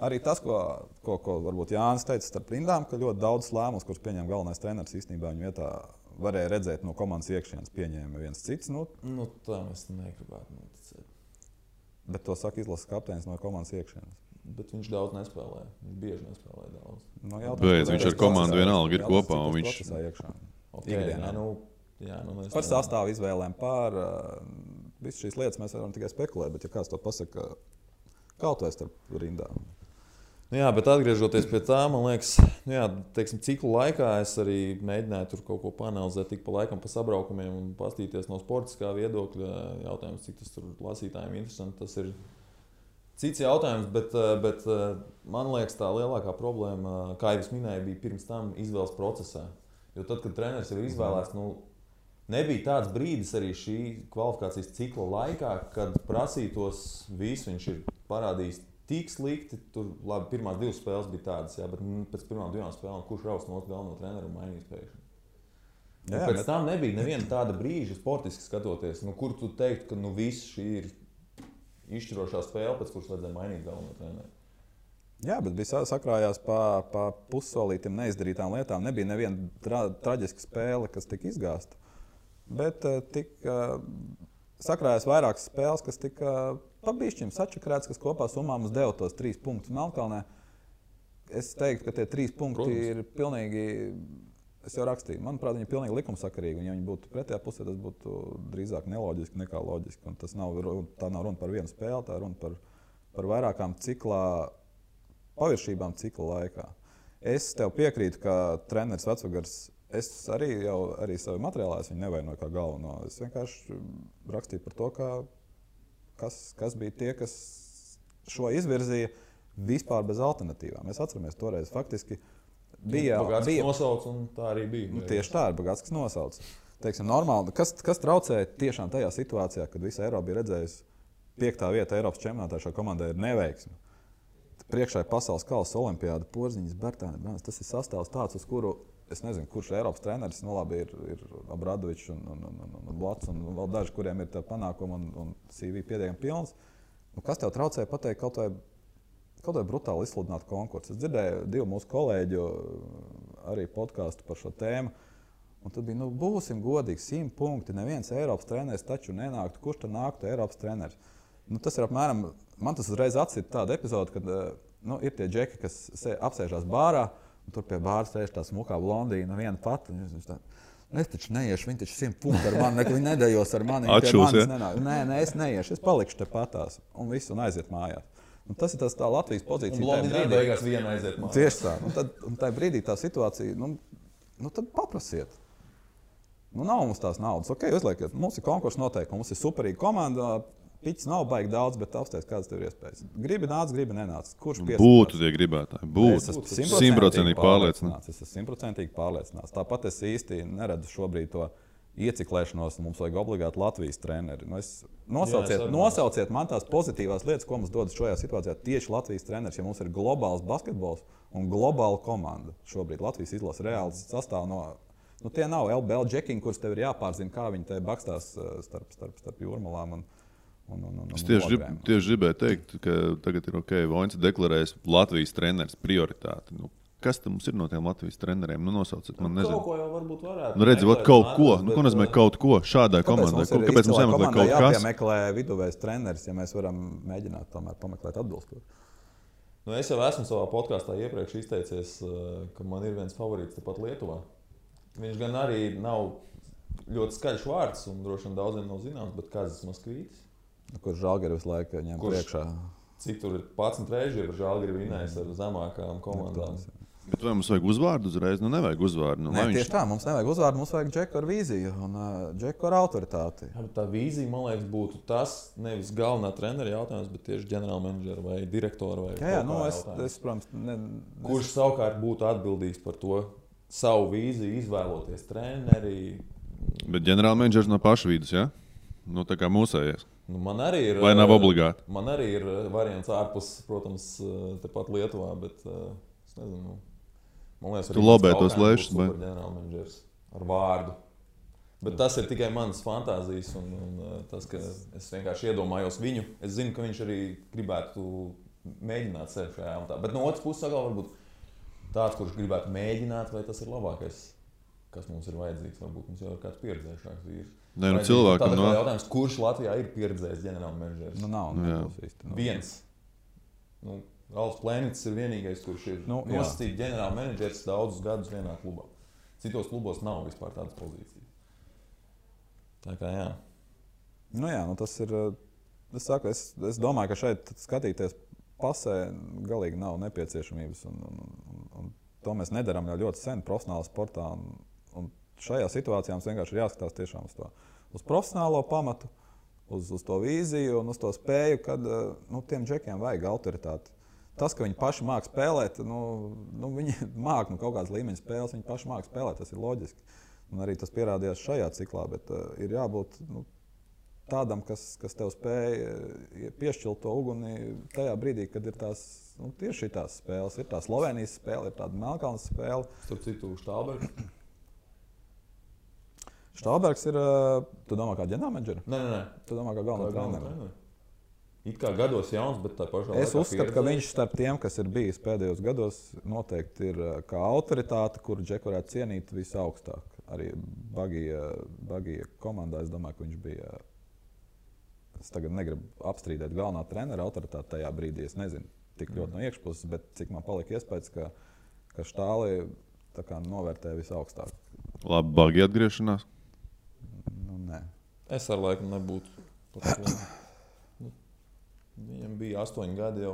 arī tas, ko varbūt Jānis teica starp rindām, ka ļoti daudz lēmumus, kurus pieņem galvenais treneris, īstenībā viņu vietā varēja redzēt no komandas iekšienes, pieņēma viens cits. Tā es negribētu noticēt. Bet to saka izlases kapteinis no komandas iekšienes. Bet viņš daudz nespēlē. Viņš bieži nespēlē daudz. Bet viņš ar komandu vienalga ir kopā. Viņš procesā iekšā. Okay, par sastāvu izvēlēm, par visu šīs lietas mēs varam tikai spekulēt, bet ja kāds to pasaka, kaut vai starp rindām. Jā, bet atgriežoties pie tā, man liekas, ciklu laikā es arī mēģināju tur kaut ko panalizēt, tik pa laikam pa sabraukumiem un pastīties no sportiskā viedokļa. Jautājums, cik tas tur lasītājiem interesanti, tas ir cits jautājums, bet man liekas, tā lielākā problēma, kā jau es minēju, bija pirms tam izvēles procesā. Jo tad, kad treneris jau ir izvēlēts, nebija tāds brīdis arī šī kvalifikācijas cikla laikā, kad prasītos visu, viņš ir parādījis tik slikti. Tur, labi, pirmās 2 spēles bija tādas, bet pēc pirmām 2 spēlēm kurš raus no galveno treneru un mainīs pēkšņi. Pēc tam nebija neviena tāda brīža sportiski skatoties, kur tu teiktu, ka viss šī ir izšķirošā spēle, pēc kuras vajadzēja mainīt galveno treneru. Jā, bet bija sakrājās pa pussolītiem neizdarītām lietām. Nebija neviena traģiska spēle, kas tika izgāsta. Bet sakrājās vairākas spēles, kas tika pabišķim sačakrēts, kas kopā summā mums deva tos 3 punktus Melnkalnē. Es teiktu, ka tie 3 punkti ir pilnīgi, es jau rakstīju, manuprāt, viņi ir pilnīgi likumsakarīgi. Un ja viņi būtu pretējā pusē, tas būtu drīzāk neloģiski nekā loģiski. Un tā nav runa par vienu spēli, tā ir runa par vairākām paviršībām cikla laikā. Es tev piekrītu, ka treneris Vecvagars, es arī savu materiālā viņu nevainoju kā galveno. Es vienkārši rakstīju par to, kas bija tie, kas šo izvirzīja vispār bez alternatīvām. Mēs atceramies toreiz faktiski bija nosauc, un tā arī bija. Tieši tā ir Bagātskas nosauc. Teiksim, normāli, kas traucēja tiešām tajā situācijā, kad visa Eiropa bija redzējusi 5. vieta Eiropas čempionātā, šā komandai ir neveiksme. Priekšā ir pasaules kausa olimpiāda, Porziņas, Bertāni, Brāns. Tas ir sastāvs tāds, uz kuru es nezinu, kurš ir Eiropas treneris. Labi, ir Obradovičs un Blats un vēl daži, kuriem ir panākumi un CV pietiekami pilns. Kas tev traucēja pateikt kaut vai brutāli izsludināt konkursu? Es dzirdēju 2 mūsu kolēģu arī podkāstu par šo tēmu. Un tad bija, būsim godīgi, 100 punkti. Neviens Eiropas treneris taču nenāktu. Kurš tad nāktu Eiropas treneris? Tas ir apmēram, man tas uzreiz atsita tāda epizode, kad ir tie džeki, kas apsēžās bārā, un tur pie bāra sēž tā smukā blondīna viena pati. Es taču neiešu, viņi taču 100 punkti ar mani, viņi nedējos ar mani. Atšūs, Nē, es neiešu, es palikšu te patās un visu un aiziet mājās. Un tas ir tā Latvijas pozīcija. Un blondīna beigās viena aiziet mājās. Tieši tā. Un tajā brīdī tā situācija, tad paprasiet. Nav mums tās naudas. Ok, uzliekiet, mums ir konkursa noteikumi, mums ir superīga komanda. Piķis nav baigi daudz, bet apstāties, kādas tev ir iespējas. Gribi nāc, gribi nenāc. Kurš piesakās? Būtu tie gribētāji. Es esmu 100% pārliecināts. Tāpat es īsti neredzu šobrīd to ieciklēšanos. Mums vajag obligāti Latvijas treneri. Nosauciet man tās pozitīvās lietas, ko mums dod šajā situācijā tieši Latvijas treneris. Ja mums ir globāls basketbols un globāla komanda, šobrīd Latvijas izlase reāls sastāv no... tie nav LBL džekiņi, kurus tev ir jāpārzina, kā viņi te bakstās starp jūrmalām. Es tieši gribēju teikt, ka tagad ir ok, Voņs deklarējis Latvijas treneris prioritāti. Kas tam mums ir no tiem Latvijas treneriem? Nosauciet, man nezinu. Kaut ko jau varbūt varētu. Redzi, kaut ko. Ko nozīmē kaut ko šādai komandai? Kāpēc mums jāmeklē kaut kas? Jāmeklē viduvējs treneris, ja mēs varam mēģināt tomēr pameklēt atbilstoši. Es jau esmu savā podkāstā iepriekš izteicies, ka man ir viens favorīts tepat Lietuvā. Viņš gan arī nav ļoti skaļš vārds un droši vien daudziem nav zināms, bet Kazis Moskvītis. Kurš Žalgiris visu laiku ņem priekšā? cik tur ir 11 reizes, ir Žalgiri vinējis ar zemākām komandām. Bet vai mums vajag uzvārdu uzreiz? Nu, nevajag uzvārdu. Nu, Nē, tieši tā, mums nevajag uzvārdu, mums vajag džeku ar vīziju un džeku ar autoritāti. Jā, tā vīzija, man liekas, būtu tas nevis galvenā trenera jautājums, bet tieši ģenerālmenedžera vai direktora. Jā, nu es protams, kurš savukārt būtu atbildīgs par to savu vīziju, izvēloties treneri. Bet ģenerālmenedžers no paša vidus, jā? Nu, tā kā mūsējies. Nu, man arī ir. Vai nav obligāti? Man arī ir variants ārpus, protams, tepat Lietuvā, bet es nezinu. Man liekas, tu lobē tos lēšus, vai ģenerālmenedžers ar vārdu. Bet tas ir tikai manas fantāzijas un tas, ka es vienkārši iedomājos viņu. Es zinu, ka viņš arī gribētu mēģināt sevi šajā jautā. Bet no otras puses, atkal varbūt tāds, kurš gribētu mēģināt, vai tas ir labākais, kas mums ir vajadzīgs. Varbūt mums jau ir kāds pieredzējušāks vīrs. Nē, nu cilvēkam no jautājums, kurš Latvijā ir pieredzējis ģenerālmenedžers? Nu nav, nebūs īsti. Viens. Nu, Ralfs Plēnits ir vienīgais, kurš ir nosacīts ģenerālmenedžers daudzus gadus vienā klubā. Citos klubos nav vispār tādas pozīcijas. Tā kā jā. Nu jā, nu tas ir. Es domāju, ka šeit skatīties pasē galīgi nav nepieciešamības. Un to mēs nedarām jau ļoti sen profesionālā sportā. Un šajā situācijā mums vienkārši ir jāskatās tiešām uz profesionālo pamatu, uz to vīziju un uz to spēju, kad tiem džekiem vajag autoritāti. Tas, ka viņi paši māca spēlēt, viņi māca kaut kādas līmeņa spēles, viņi paši māca spēlēt, tas ir loģiski. Un arī tas pierādījās šajā ciklā, bet ir jābūt tādam, kas tev spēj piešķilt to uguni tajā brīdī, kad ir tās tieši tās spēles. Ir tā Slovenijas spēle, ir tāda Melnkalnes spēle. Starp citu, Štālbergs. Štālbergs ir, tu domā kā ģenerālmenedžera? Nē. Tu domā kā galvenā trenera? It kā gados jauns, bet tā pašā laikā. Es uzskatu, ka viņš starp tiem, kas ir bijis pēdējos gados, noteikti ir kā autoritāte, kuru džeku varētu cienīt visaugstāk. Arī Bagija komandā, es domāju, ka viņš bija. Es tagad negribu apstrīdēt galvenā trenera autoritāti tajā brīdī. Es nezinu tik ļoti no iekšpuses, bet cik man palika iespējas, ka Štāli novērtē visaugstāk. Labi, Bagija atgriešanās? Nu, nē. Es ar laiku nebūtu. Viņam bija 8 gadi jau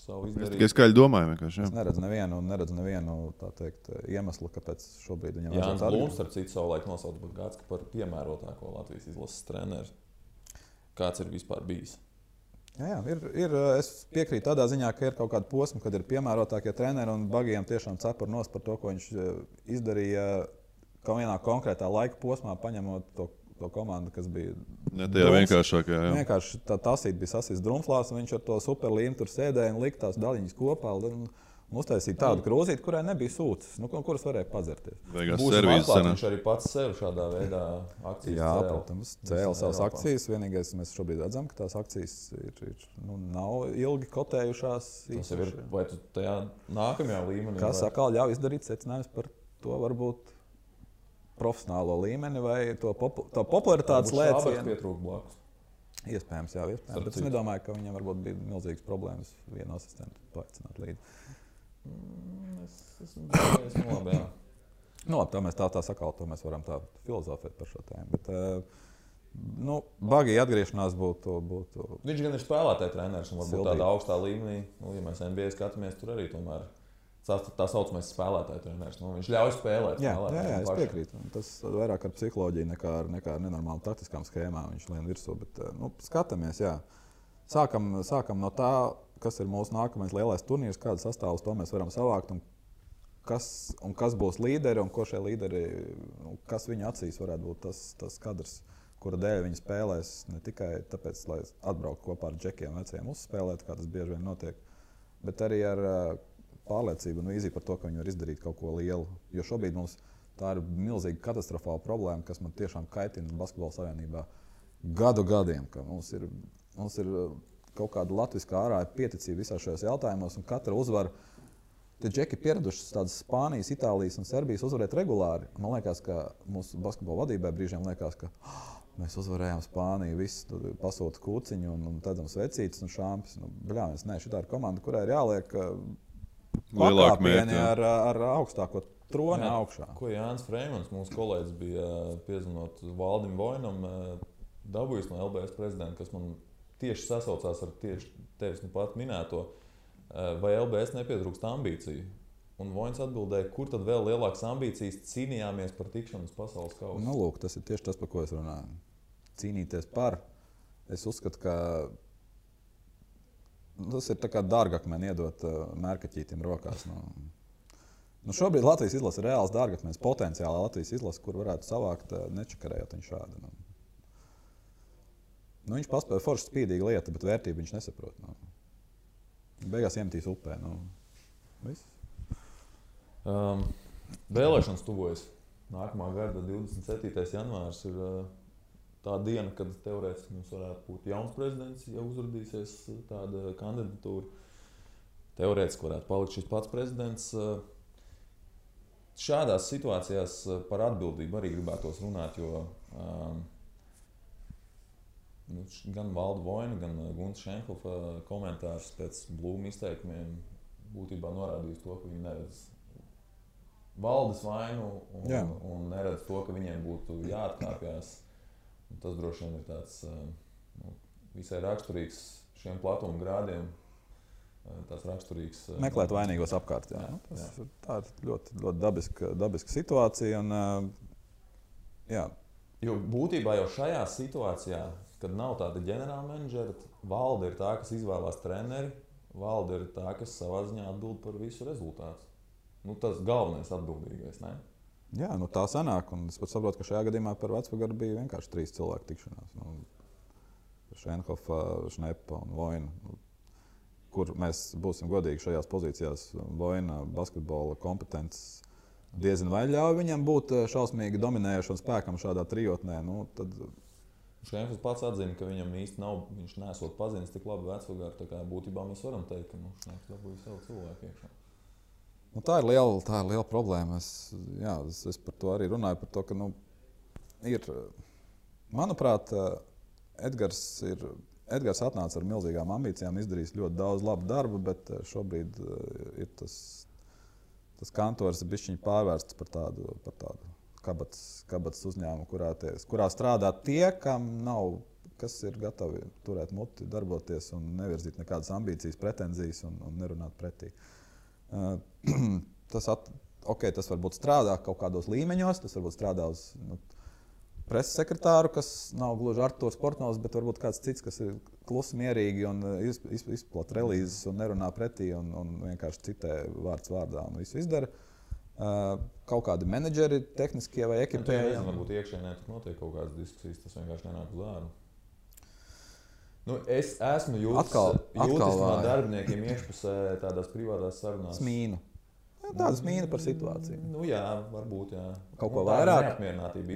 savu izdarījumu. Es skaļi domāju vienkārši. Es neredzu nevienu tā teikt, iemeslu, kāpēc šobrīd viņam Jānis Blūms, starp citu, savulaik nosauca Bagātski par piemērotāko Latvijas izlases treneru. Kāds ir vispār bijis? Jā, es piekrītu tādā ziņā, ka ir kaut kāda posma, kad ir piemērotākie treneri un Bagijam tiešām cepur nos par to, ko viņš izdarīja kaut vienā konkrētā laika posmā, paņemot to komandu, kas bija vienkāršākā. Vienkārši tā tasīt bija sasīs drumflās, un viņš ar to superlīnu tur sēdēja un lika tās daļiņas kopā. Uztaisīja tādu krūzīti, kurai nebija sūcis, kuras varēja padzerties. Viņš arī pats sev šādā veidā akcijas cēla. Jā, protams, cēla savas akcijas. Vienīgais, mēs šobrīd redzam, ka tās akcijas nav ilgi kotējušās. Tas jau ir, vai tu tajā nākamajā līmenī? Kas atkal ļauj izdarīt secinājumus par to varbūt profesionālo līmeni vai to popularitātes lēcienu. Štālbergs pietrūka blakus. Iespējams, jā, iespējams. Bet es nedomāju, ka viņam varbūt bija milzīgas problēmas vienu asistentu paaicināt līdzi. Es esmu labi, jā. Labi, tā sakal, to mēs varam tā filozofēt par šo tēmu. Bet, Bagija atgriešanās būtu... Viņš gan ir spēlētāja treneris un varbūt tādā augstā līmenī. Ja mēs NBA skatāmies, tur arī tomēr tā saucamais spēlētāja treneris. Viņš ļauj spēlēt. Jā, es piekrītu. Tas vairāk ar psiholoģiju nekā ar nenormālu taktiskām schēmām viņš lien virsū. Bet, skatāmies, jā. Sākam no tā, kas ir mūsu nākamais lielais turnīrs, kādu sastāvus to mēs varam savākt un kas būs līderi un ko šie līderi, kas viņu acīs varētu būt tas kadrs, kura dēļ viņi spēlēs ne tikai tāpēc, lai atbrauktu kopā ar džekiem veciem uzspēlēt, kā tas bieži vien notiek, bet arī ar pārliecību un vīziju par to, ka viņi var izdarīt kaut ko lielu. Jo šobrīd mums tā ir milzīga katastrofāla problēma, kas man tiešām kaitina Basketbola savienībā gadiem, ka mums ir kaut kāda latviskā ārā pieticība visās šajos jautājumos, un katra uzvara, tie džeki pieraduši tādas Spānijas, Itālijas un Serbijas uzvarēt regulāri. Man liekas, ka mūsu basketbola vadībai brīžiem liekas, ka mēs uzvarējām Spāniju, visi pasūta kūciņu un tādam svecītas un šāmpis. Šitā ir komanda, kurai ir jāliek pakāpieni ar augstāko troni augšā. Ko Jānis Freimans, mūsu kolēģis, bija piezinot Valdim Vojnam, dabūjis no LBS prezidenta, kas man tieši sasaucās ar tieši tevis nu pat minēto, vai LBS nepietrūkst ambīciju. Un Voins atbildēja, kur tad vēl lielākas ambīcijas cīnījāmies par tikšanu uz pasaules kausa. Nu, lūk, tas ir tieši tas, par ko es runāju. Cīnīties par. Es uzskatu, ka tas ir tā kā dārgakmeni iedot mērkaķītim rokās. Nu, šobrīd Latvijas izlase ir reāls dārgakmenis, potenciāli Latvijas izlase, kur varētu savākt nečakarējot viņu šādi. Nu, viņš paspēja forši spīdīga lieta, bet vērtību viņš nesaprot. Beigās iemetīs upē. Viss. Vēlēšanas tuvojas. Nākamā gada 27. janvārs ir tā diena, kad teorētiski mums varētu būt jauns prezidents, ja uzrādīsies tāda kandidatūra. Teorētiski varētu palikt šis pats prezidents. Šādās situācijās par atbildību arī gribētos runāt, jo gan Valda Voina, gan Gunta Šenhofa komentārs pēc Blūma izteikumiem būtībā norādījis to, ka viņi neredz valdes vainu un neredz to, ka viņiem būtu jāatkāpjas. Tas droši vien ir tāds visai raksturīgs šiem platuma grādiem. Tas raksturīgs. Meklēt vainīgos apkārt. Jā. Tā ir ļoti, ļoti dabiska situācija. Jo būtībā jau šajā situācijā, kad nav tāda ģenerāla menedžera, valde ir tā, kas izvēlās treneri, valde ir tā, kas savā ziņā atbild par visu rezultātu. Tas galvenais atbildīgais, ne? Jā, tā sanāk, un es pat saprotu, ka šajā gadījumā par Vecpagaru bija vienkārši 3 cilvēku tikšanās. Šenhofa, Šnepa un Voina, kur mēs būsim godīgi šajās pozīcijās. Voina basketbola kompetences diezin vai ļauj viņam būt šausmīgi dominējošam spēkam šādā trijotnē. Tad Šenhofs pats atzina, ka viņam īsti nav, viņš nesot pazinis tik labi Vecpagaru, tā kā būtībā mēs varam teikt, ka Šenhofs dabūja savu cilvēku iekšā. Tā ir liela problēma. Es par to arī runāju. Par to, ka, manuprāt, Edgars atnāca ar milzīgām ambīcijām, izdarījis ļoti daudz labu darbu, bet šobrīd ir tas kantors bišķiņ pārvērsts par tādu kabatas uzņēmumu, kurā strādā tie, kas ir gatavi turēt muti, darboties un nevirzīt nekādas ambīcijas, pretenzijas un nerunāt pretī. Tas varbūt strādā kaut kādos līmeņos, tas varbūt strādā uz preses sekretāru, kas nav gluži Artūrs Portnovs, bet varbūt kāds cits, kas ir klusi mierīgi un izplata relīzes un nerunā pretī un vienkārši citē vārds vārdā un visu izdara. Kaut kādi menedžeri, tehniskie vai ekipēji. Varbūt iekšēnē tur notiek kaut kādas diskusijas, tas vienkārši nenāk uz ārā. Es esmu jūtis no darbiniekiem iekšpusē tādās privātās sarunās. Smīnu. Tāda smīna par situāciju. Jā, varbūt, jā. Kaut ko vairāk. Neapmierinātība.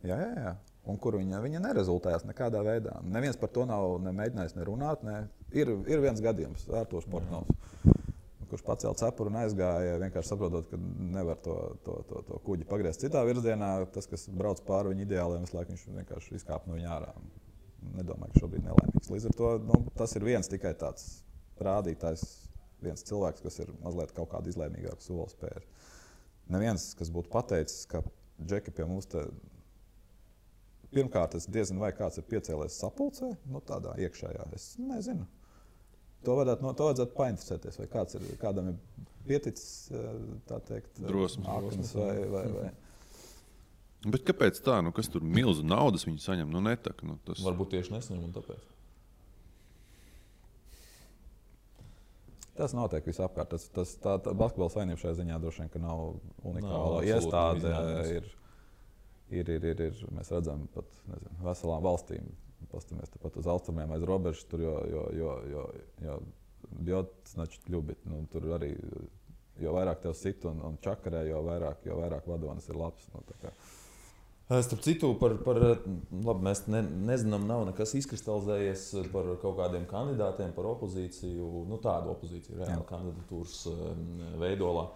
Jā. Un kur viņa nerezultējās nekādā veidā. Neviens par to nav mēģinājis nerunāt. Ir viens gadījums, Artūrs Portnovs, kurš pacēla cepuru un aizgāja, vienkārši saprotot, ka nevar to kuģi pagriezt citā virzienā. Tas, kas brauc pāri viņa ideāliem, visu laiku viņš vienkārši izkāpa no viņa ārā. Nedomāju, ka šobrīd nelaimīgs. Līdz ar to tas ir viens tikai tāds rādītājs, viens cilvēks, kas ir mazliet kaut kādu izlēmīgāku soli spēris. Neviens, kas būtu pateicis, ka Džeki pie mums te pirmkārt, es diezinu, vai kāds ir piecēlies sapulcē, tādā iekšējā, es nezinu. To vajadzētu painteresēties, vai kādam ir pieticis, tā teikt, drosmes vai. Bet kāpēc tā? Kas tur milzu naudas viņi saņem? Netak. Tas... Varbūt tieši nesaņem un tāpēc. Tas notiek visapkārt. Tā basketbola savienība šajā ziņā droši vien, ka nav unikāla iestāde. Ir, mēs redzam pat veselām valstīm. Pastamies pat uz austrumiem aiz robežas, tur jo bjot значит ļubit. Tur arī, jo vairāk tev sit un čakarē, jo vairāk vadonis ir labs. Starp citu, labi, mēs nezinām, nav nekas izkristalizējies par kaut kādiem kandidātiem, par opozīciju, tādu opozīciju, reāli kandidatūras veidolā.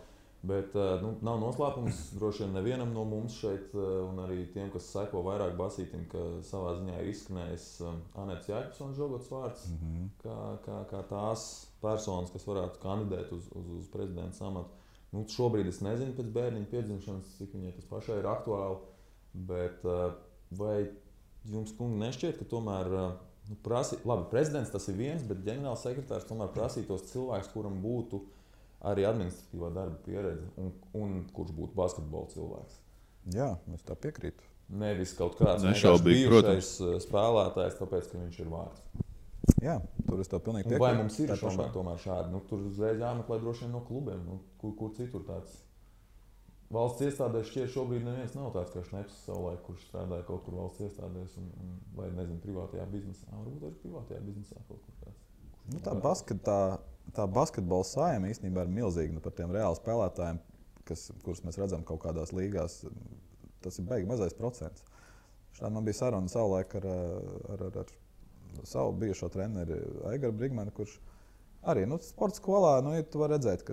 Bet nav noslēpums droši vien nevienam no mums šeit, un arī tiem, kas seko vairāk basītim, ka savā ziņā ir izskanējis Anētas Jēkabsonas Žogotas vārds, kā tās personas, kas varētu kandidēt uz prezidenta amatu. Šobrīd es nezinu pēc bērniņa piedzimšanas, cik viņai tas pašai ir aktuāli. Bet vai jums, kungi, nešķiet, ka tomēr Labi, prezidents tas ir viens, bet ģenerāls sekretārs tomēr prasītos cilvēks, kuram būtu arī administratīvā darba pieredze un kurš būtu basketbola cilvēks. Jā, es tā piekrītu. Nevis kaut kāds bijušais spēlētājs, tāpēc, ka viņš ir vārds. Jā, tur es tev pilnīgi piekrītu. Vai mums ir tomēr šādi? Tur uzreiz jāmeklē droši vien no klubiem. Kur citur tāds? Valsts iestādēs šķiet šobrīd neviens nav tāds, kā Šneps savulaik, kurš strādāja kaut kur valsts iestādēs vai, nezinu, privātajā biznesā. Varbūt arī privātajā biznesā kaut kur tāds. Tā basketbola saima īstenībā ir milzīga par tiem reāli spēlētājiem, kurus mēs redzam kaut kādās līgās. Tas ir baigi mazais procents. Šādi man bija saruna savulaik ar savu bijušo treneri Aigaru Brigmanu, kurš arī sporta skolā, tu vari redzēt, ka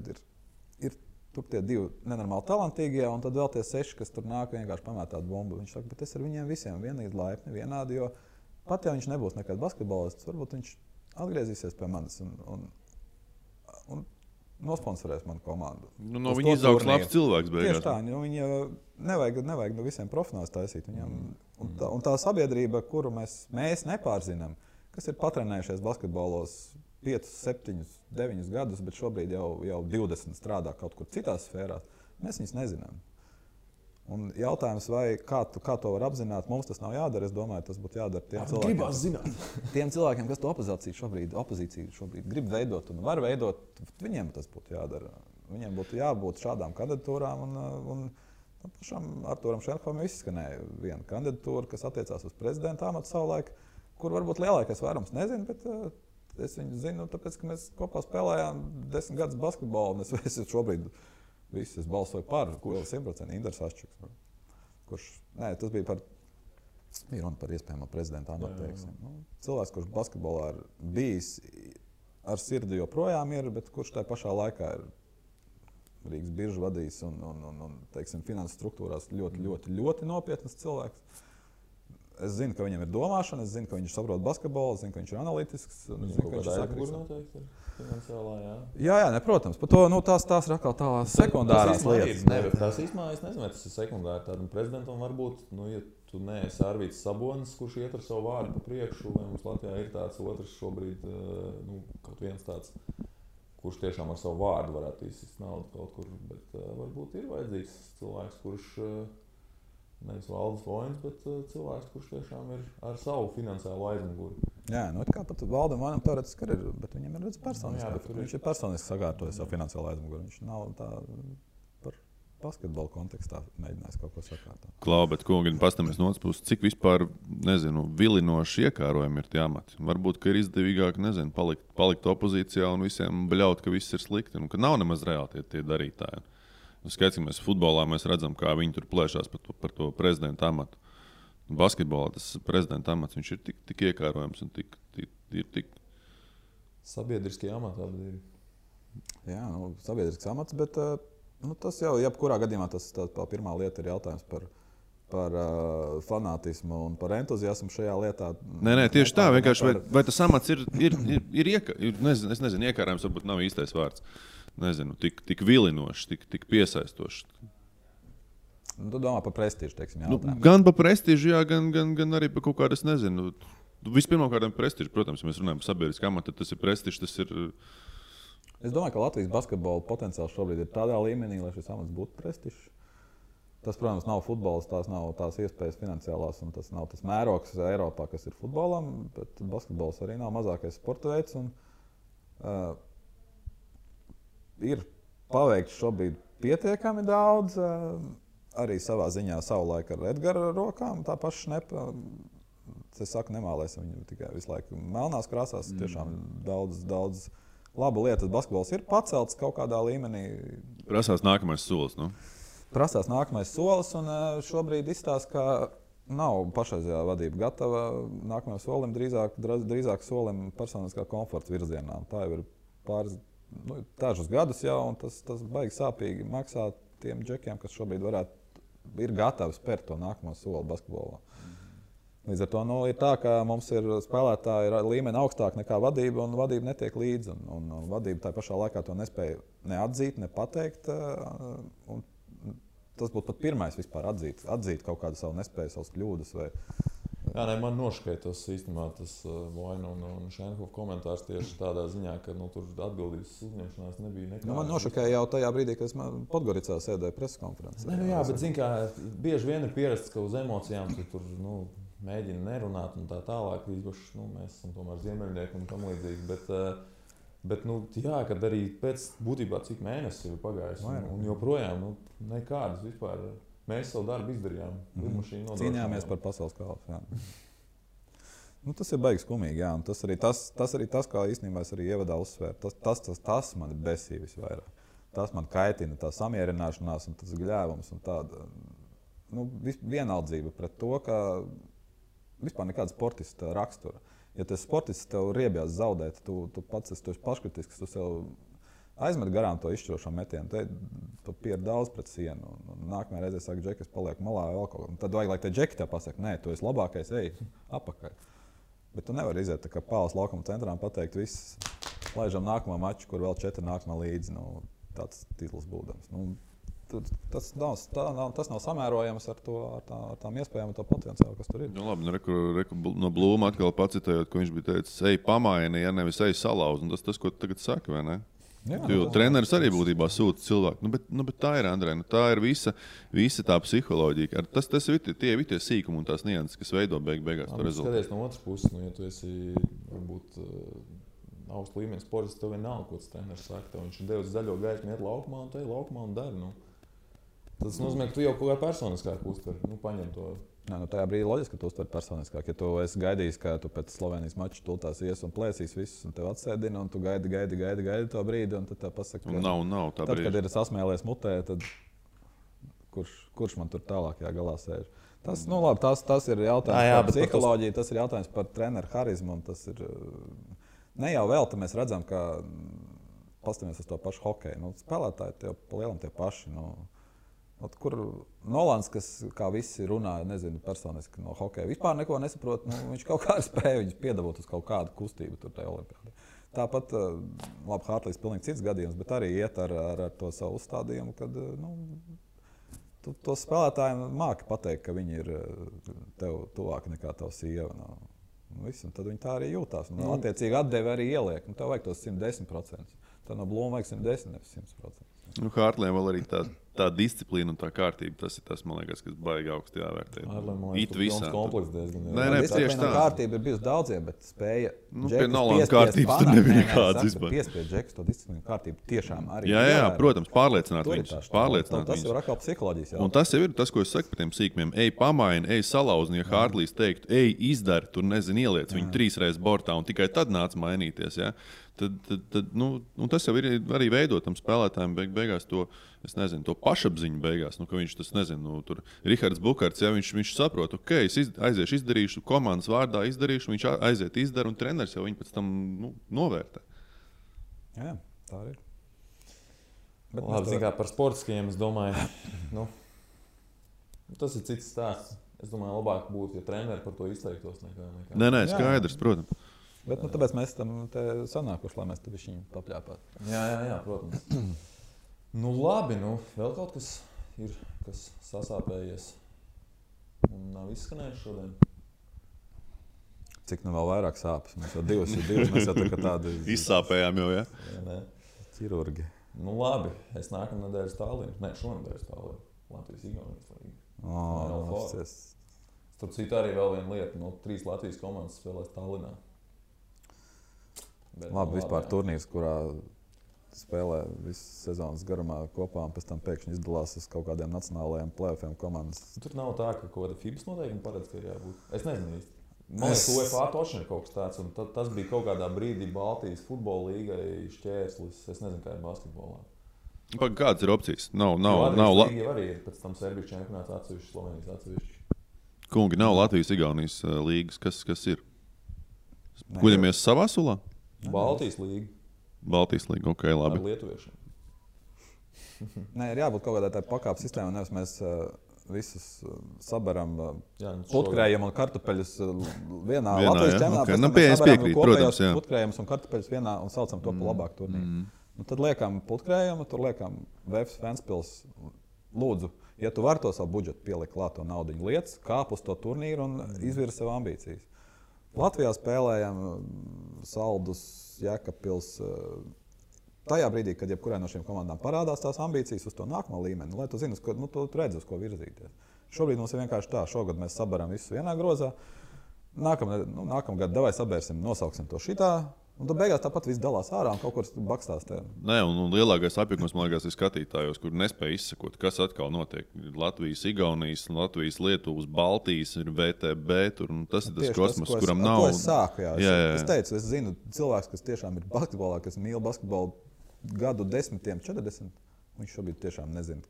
ir tur tie 2 nenormāli talantīgie, un tad vēl tie 6, kas tur nāk vienkārši pamēt tādu bumbu. Viņš saka, bet es ar viņiem visiem vienīgi laipni, vienādi, jo pat ja viņš nebūs nekad basketbolists, varbūt viņš atgriezīsies pie manis un nosponsorēs manu komandu. No viņa izaugs labs cilvēks beigās. Tieši tā, viņa nevajag no visiem profesionālus taisīt. Un tā sabiedrība, kuru mēs nepārzinām, kas ir patrenējušies basketbolos 5, 7, 9 gadus, bet šobrīd jau 20 strādā kaut kur citās sfērās, mēs viņus nezinām. Un jautājums, kā to var apzināt, mums tas nav jādara. Es domāju, tas būtu jādara tiem cilvēkiem, kas to opozīciju šobrīd grib veidot un var veidot. Viņiem tas būtu jādara. Viņiem būtu jābūt šādām kandidatūrām. Un pašam Artūram Šenhofam izskanēja viena kandidatūra, kas attiecās uz prezidenta amatu savulaik, kur varbūt lielākais vairums nezina, bet es viņu zinu, tāpēc, ka mēs kopā spēlējām 10 gadus basketbolu. Es šobrīd es balsoju par 100% Indars Aščuks. Tas bija runa par iespējamo prezidenta amatu. Cilvēks, kurš basketbolā ir bijis ar sirdi joprojām ir, bet kurš tajā pašā laikā ir Rīgas biržu vadījis un teiksim, finanses struktūrās ļoti nopietnas cilvēks. Es zinu, ka viņam ir domāšana, es zinu, ka viņš saprot basketbolu, es zinu, ka viņš ir analītisks. Es zinu, ka viņš ir sakrīts. Finansiālā, jā, protams. Par to tās ir atkal tādas sekundārās lietas. Tas īstenībā, es nezinu, vai tas ir sekundāri. Tādam prezidentam varbūt, ja tu neesi Arvīts Sabonis, kurš iet ar savu vārdu pa priekšu, vai mums Latvijā ir tāds otrs šobrīd, kaut viens tāds, kurš tiešām ar savu vārdu varētu izsist naudu kaut kur, bet varbūt ir vajadzīgs cilvēks, kurš nevis Valdis Voins, bet cilvēks, kurš tiešām ir ar savu finansiālo aizmuguri. Jā, kā pat Valdam Voinam teorētiski ir, bet viņam ir personiski. Viņš ir personiski sakārtojis savu finansiālo aizmuguri. Viņš nav tā par basketbolu kontekstā mēģinājis kaut ko sakārtot. Klau, bet kungi, pastamies no otras puses, cik vispār, vilinoši iekārojumi ir tie amati. Varbūt, ka ir izdevīgāk, palikt opozīcijā un visiem bļaut, ka viss ir slikti un ka nav nemaz reāli tie darītāji. Skaidrs, ka mēs futbolā redzam, kā viņi tur plēšās par to prezidenta amatu. Basketbolā tas prezidenta amats viņš ir tik iekārojams un tik sabiedriskie amati abi ir. Jā, sabiedrisks amats, bet tas jau jebkurā gadījumā tā pirmā lieta ir jautājums par fanātismu un par entuziasmu šajā lietā. Nē, tieši tā. Vienkārši vai tas amats ir iekārojams, varbūt nav īstais vārds. Tik vilinošs, tik piesaistošs. Tu domā par prestīžu, teiksim, gan par prestīžu, jā, gan arī par kaut kādu, es nezinu. Vispirmkārt par prestīžu, protams, ja mēs runājam par sabiedrisku amatu, tad tas ir prestīžs, tas ir... Es domāju, ka Latvijas basketbola potenciāls šobrīd ir tādā līmenī, lai šis amats būtu prestižs. Tas, protams, nav futbols, tās nav tās iespējas finansiālās, un tas nav tas mērogs Eiropā, kas ir futbolam, bet basketbols arī nav mazākais sporta veids. Ir paveikts šobrīd pietiekami daudz, arī savā ziņā savulaik ar Edgara rokām, tā paša Šnepa. Es saku, nemālēsim viņu tikai visu laiku melnās krāsās, tiešām daudz labu lietas. Basketbols ir pacelts kaut kādā līmenī. Prasās nākamais solis, Prasās nākamais solis, un šobrīd izstāsta, ka nav pašreizējā vadība gatava nākamajam solim, drīzāk solim personiskā komforta virzienā. Tā jau ir dažus gadus jau, un tas baigi sāpīgi maksā tiem džekiem, kas šobrīd ir gatavi spērt to nākamo soli basketbolā. Līdz ar to ir tā, ka mums ir spēlētāji līmeni augstāk nekā vadība, un vadība netiek līdzi. Un vadība tā pašā laikā to nespēja neatzīt, nepateikt. Tas būtu pat pirmais vispār atzīt kaut kādu savu nespēju, savas kļūdas vai Jā, ne, man nošķiet tas īstenībā tas Vaina un Šenhofa komentārs tieši tādā ziņā, ka tur atbildības uzņemšanās nebija nekāda. Man nošokēja jau tajā brīdī, kad es Podgoricā sēdēju preskonferencē. Jā, bet zin kā, bieži vien ir pierasts, ka uz emocijām tu tur mēģina nerunāt un tā tālāk. Īpaši mēs esam tomēr ziemeļnieki un tam līdzīgi. Bet jā, kad arī pēc būtībā cik mēnesis ir pagājis un joprojām nekādas vispār. Mēs savu darbu izdarījām. Cīnījāmies par pasaules kausu. Tas ir baigs skumīgi. Jā. Tas arī tas, kā īstenībā es arī ievadā uzsvēru. Tas man besīja visvairāk. Tas man kaitina, tā samierināšanās un tas gļēvums un tāda vienaldzība pret to, ka vispār nekāda sportista rakstura. Ja tas sportists tev riebjās zaudēt, tu pats esi paškritisks, tu sev aizmet garām to izšķirošo metienu, tu pieri daudz pret sienu. Nākamajā reizē saka, Džeki, es palieku malā vēl kaut ko. Tad vajag, lai te Džeki tev pasaka, nē, tu esi labākais, ej, apakaļ. Bet tu nevari iziet tā kā Pāles laukuma centrā un pateikt, viss, laižam nākamo maču, kur vēl 4 nākamā līdzi, tāds titls būdams. Tas nav samērojams ar tām iespējām un to potenciālu, kas tur ir. Labi, no Blūma atkal pacitējot, ko viņš bija teicis, ej pamaini, ja nevis ej salauz. Tas, ko tu tagad saki, vai ne? Jo treneris arī būtībā sūta cilvēku. Bet tā ir, Andrej, tā ir visa tā psiholoģija. Tas ir tie sīkumi un tās nianses, kas veido beigās to rezultātu. Skaties no otras puses, ja tu esi varbūt augsts līmenis sportists, tev vienalga, ko tas treneris saka. Viņš ir devis zaļo gaismu, iet laukumā un te ir laukumā un dari. Tas nozīmē, ka tu jau kaut kā personiskāk uztver, paņem to. Tajā brīdī loģiski, ka tu uztver personiskāk. Ja tu esi gaidījis, ka tu pēc Slovenijas mača tultās ies un plēsīs visus un tev atsēdina, un tu gaidi to brīdi, un tad tev pasaka, ka nav tā brīdi. Tad, kad ir sasmēlies mutē, tad kurš man tur tālākajā galā sēž? Tas ir jautājums par psiholoģiju, tas ir jautājums par treneru harizmu, un tas ir ne jau vēl, tad mēs redzam, ka pastamies uz to pašu hokeju. Spēlētāji tie pa lielam tie paši. Kur Nolans, kas kā visi runāja, nezinu personiski no hokeja, vispār neko nesaprot, viņš kaut kā spēja viņus piedabot uz kaut kādu kustību tur tajā olimpiādē. Tāpat, labi, Hartlīs pilnīgi cits gadījums, bet arī iet ar to savu uzstādījumu, kad to spēlētājiem māki pateikt, ka viņi ir tev tuvāki nekā tava sieva. Tad viņi tā arī jūtās. Attiecīgi atdevi arī ieliek. Tev vajag tos 110%. Tad no Blūma vajag 110, nevis 100%. Hartliem vēl arī tā disciplīna un tā kārtība, tas ir tas, man liekas, kas baigi augsti jāvērtē. It visā. Nē, tieši tā. Kārtība ir bijusi daudziem, bet spēja pie Nolans kārtības tur nebija nekādas vispār. Piespied Džekus to disciplīnu kārtību tiešām arī. Jā, protams, pārliecināt viņus. Tas jau ir atkal psiholoģijas jautājums. Un tas jau ir tas, ko es saku par tiem sīkumiem. Ej pamaini, ej salauzni, ja Hartlīs teiktu, ej izdari, tur nezinu, ieliec viņu 3 reizes bortā un tikai tad nāc mainīties. Ja? Tas jau ir arī veidotam spēlētājiem beigās to, es nezinu, to pašapziņu beigās, ka viņš tas, nezinu, tur Rihards Bukarts, ja viņš saprot, ok, es aiziešu, izdarīšu, komandas vārdā izdarīšu, viņš aiziet, izdara un treneris jau viņu pēc tam novērtē. Jā, tā arī. Labi, zin kā par sportiskajiem, es domāju, tas ir cits stāsts. Es domāju, labāk būtu, ja treneri par to izteiktos nekā. Nē, skaidrs, protams. Bet tāpēc mēs tam sanākuši, lai mēs te viņu papļāpātu. Jā, protams. Labi, vēl kaut kas ir, kas sasāpējies un nav izskanējis šodien. Cik vēl vairāk sāpes? Mēs jau divas, mēs jau tā kā tādi... Izsāpējām jau, ja? Ķirurgi. Labi, es nākamā nedēļas Tallinā. Nē, šonedēļas Tallinā. Latvijas-Igaunijas līga. Starp citu arī vēl viena lieta. 3 Latvijas komandas spēlēs Tallinā. Labi, vispār turnīrs, kurā spēlē visas sezonas garumā kopā un pēc tam pēkšņi izdalās uz kaut kādiem nacionālajiem play-offiem komandas. Tur nav tā, ka kaut kāda FIBAS noteikumi paredz, ka ir jābūt. Es nezinu īsti. Man liekas, UEFA tošana ir kaut kas tāds, un tas bija kaut kādā brīdī Baltijas futbola līgai šķērslis. Es nezinu, kā ir basketbolā. Kādas ir opcijas? Nav Latvijas arī ir pēc tam Serbijas čempionāts atsevišķi, Slovenijas atsevišķi. Kungi, nav Latvijas-Igaunijas līgas. Kas ir? Guļamies savā sulā? Baltijas līga. Baltijas līga, ok, labi. Ar lietuviešiem. Nē, ir jābūt kaut kādai tā pakāpes sistēmai, nevis mēs visus sabaram putkrējiem un kartupeļus vienā Latvijas čempionātā. Mēs piekrīt, protams, jā. Putkrējums un kartupeļus vienā un saucam to pa labāku turnīru. Tad liekam putkrējumu, tur liekam Vēfs Ventspils. Lūdzu, Ja tu vari to savu budžetu pielikt klāt to naudiņu lietas, kāp uz to turnīru un izvirzi sev ambīcijas. Latvijā spēlējam Saldus, Jēkabpils. Tajā brīdī, kad jebkurai no šīm komandām parādās tās ambīcijas uz to nākamo līmeni, lai tu zini, tu redzi, uz ko virzīties. Šobrīd mums ir vienkārši tā, šogad mēs sabaram visu vienā grozā. Nākamgad davai sabērsim, nosauksim to šitā. Un tad beigās tāpat viss dalās ārā un kaut kur bakstās. Nē, un lielākais apjukums, man liekas, ir skatītājos, kur nespēj izsekot, kas atkal notiek. Latvijas, Igaunijas, Latvijas, Lietuvas, Baltijas, ir VTB, tur, un tas ir tas kosmos, kuram nav. Es sāku, jā. Es teicu, es zinu cilvēks, kas tiešām ir basketbolā, kas mīl basketbolu gadu 10, 40. Viņš šobrīd tiešām nezina,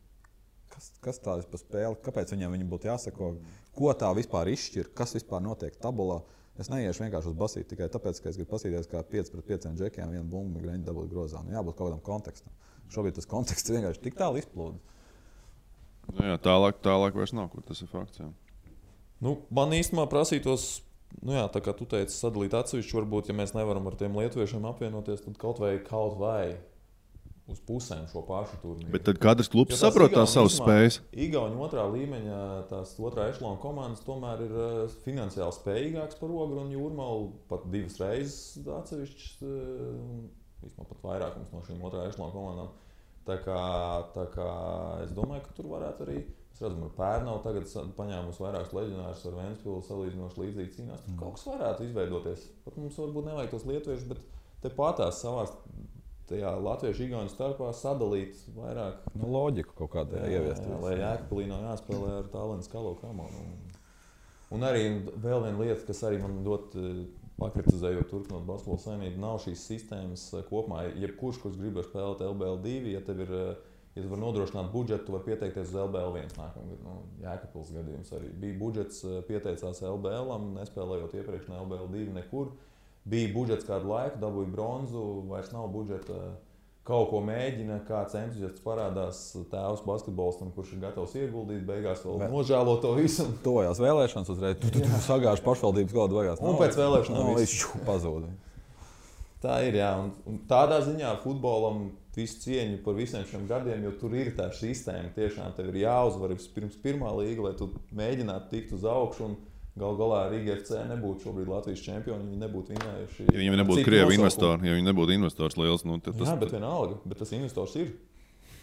kas tā ir pa spēli, kāpēc viņam būtu jāsako, ko tā vispār izšķir, kas vispār notiek tabulā. Es neiešu vienkārši uz basīti tikai tāpēc, ka es gribu paskatīties, kā 5 pret 5 džekiem vienu bumbu greņu dabūt grozā. Jābūt kaut kādam kontekstam. Šobrīd tas konteksts vienkārši tik tālu izplūda. Jā, tālāk vairs nav, kur tas ir fakts. Jā. Man īstenībā prasītos, tā kā tu teici, sadalīt atsevišķi, varbūt, ja mēs nevaram ar tiem lietuviešiem apvienoties, tad kaut vai uz pusēm šo pašu turnīru. Bet tad katrs klubs saprot tās savas spējas. Igauni otrā līmeņa, tās otrā ešalona komandas tomēr ir finansiāli spējīgāks par Ogru un Jūrmalu pat 2 reizes atsevišķas, vismaz pat vairākums no šīm otrā ešalona komandām. Tā kā es domāju, ka tur varētu arī, mēs redzam, ar Pērnavu tagad paņēmusi vairākus leģionārus ar Ventspilu salīdzinoši līdzīgi cīnās. Tur kaut kas varētu izveidoties. Pat mums varbūt nevajag tos lietuviešus, bet te patās savās tajā latviešu igauņu starpā sadalīt vairāk. Loģiku kaut kādā ieviest. Lai Jēkabpilī nav jāspēlē ar Tallinas Kalo Kamonu. Un arī vēl viena lieta, kas arī man ļoti pakritizējot turpinot basketbola saimību, nav šīs sistēmas kopumā. Jebkurš, kurš grib spēlēt LBL2, ja tu vari nodrošināt budžetu, tu vari pieteikties uz LBL1 nākamgad. Jēkabpils gadījums arī bija budžets, pieteicās LBL-am, nespēlējot iepriekš ne LBL2 nekur. Bija budžets kādu laiku, dabūja bronzu, vairs nav budžeta. Kaut ko mēģina, kāds entuziasts parādās tēvs basketbolistam, kurš ir gatavs ieguldīt, beigās vēl nožēlo to visu. Tojās vēlēšanas uzreiz, tu sagāži pašvaldības gadu beigās. Un pēc vēlēšanām viss pazūd. Tā ir, jā. Un tādā ziņā futbolam visu cieņu par visiem šiem gadiem, jo tur ir tā sistēma. Tiešām tev ir jāuzvar pirms pirmā līga, lai tu mēģinātu tikt uz augšu. Galu galā Rīga FC nebūtu šobrīd Latvijas čempioni, viņi nebūtu vinējuši. Ja viņi nebūtu krievi investori, ja viņi nebūtu investors liels, tad tas... Jā, bet vienalga, bet tas investors ir.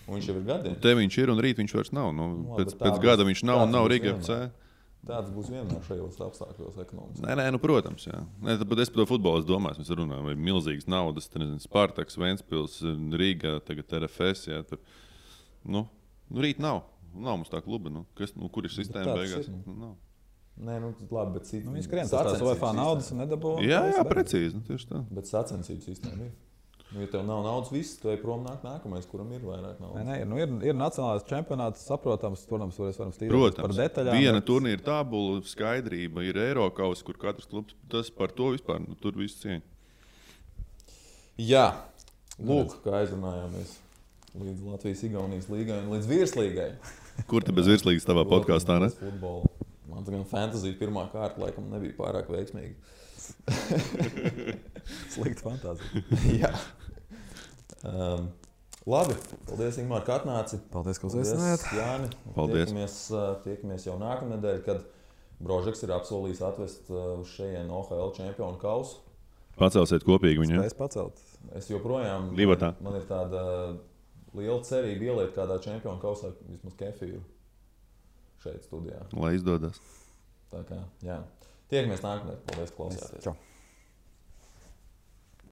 Un viņš jau ir gadiem. Te viņš ir un rīt viņš vairs nav. Pēc gada viņš nav un nav Rīga FC. Tāds būs vienmēr šajos apstākļos ekonomiski. Nē, protams, jā. Bet es par to futbolu domāju, mēs runājam, vai milzīgas naudas, Spartaks, Ventspils, Rīga, tagad RFS, jā, tur. Rīt nav. Nav mums tā kluba, kur ir sistēma beigās? Nav. Nē, labi, bet viņi skrien tās UEFA naudas un nedabū. Jā, precīzi, tieši tā. Bet sacensību sistēma ir. Ja tev nav naudas, viss, tev prom nāk nākamais, kuram ir vairāk naudas. Nē, ir nacionālais čempionāts, saprotams, protams, varam stīrēt par detaļām. Viena turnīra tabula, skaidrība, ir Eirokaus, kur katrs klubs, tas par to vispār, tur viss cieņa. Jā, lūk, kā aizrunājāmies līdz Latvijas-Igaunijas līgai un līdz virslīgai. Kur te bez virslīgas tavā podkāstā, ne? Futbolu. Man gan fantāzija pirmā kārta laikam nebija pārāk veiksmīga. Slikta fantāzija. Jā. Labi, paldies, Ingmār, ka atnāci. Paldies, ka uzaicinājāt. Jāni. Paldies. Tiekamies jau nākamnedēļ, kad Brožeks ir apsolījis atvest uz šejien OHL čempionu kausu. Pacelsiet kopīgi viņu. Spēs pacelt. Es joprojām, Livatā. Man ir tāda liela cerība ieliet kādā čempionu kausā vismaz kefīru. Šeit studijā. Lai izdodas. Tā kā, jā. Tiekamies nākamnedēļ. Paldies, klausāties. Čau.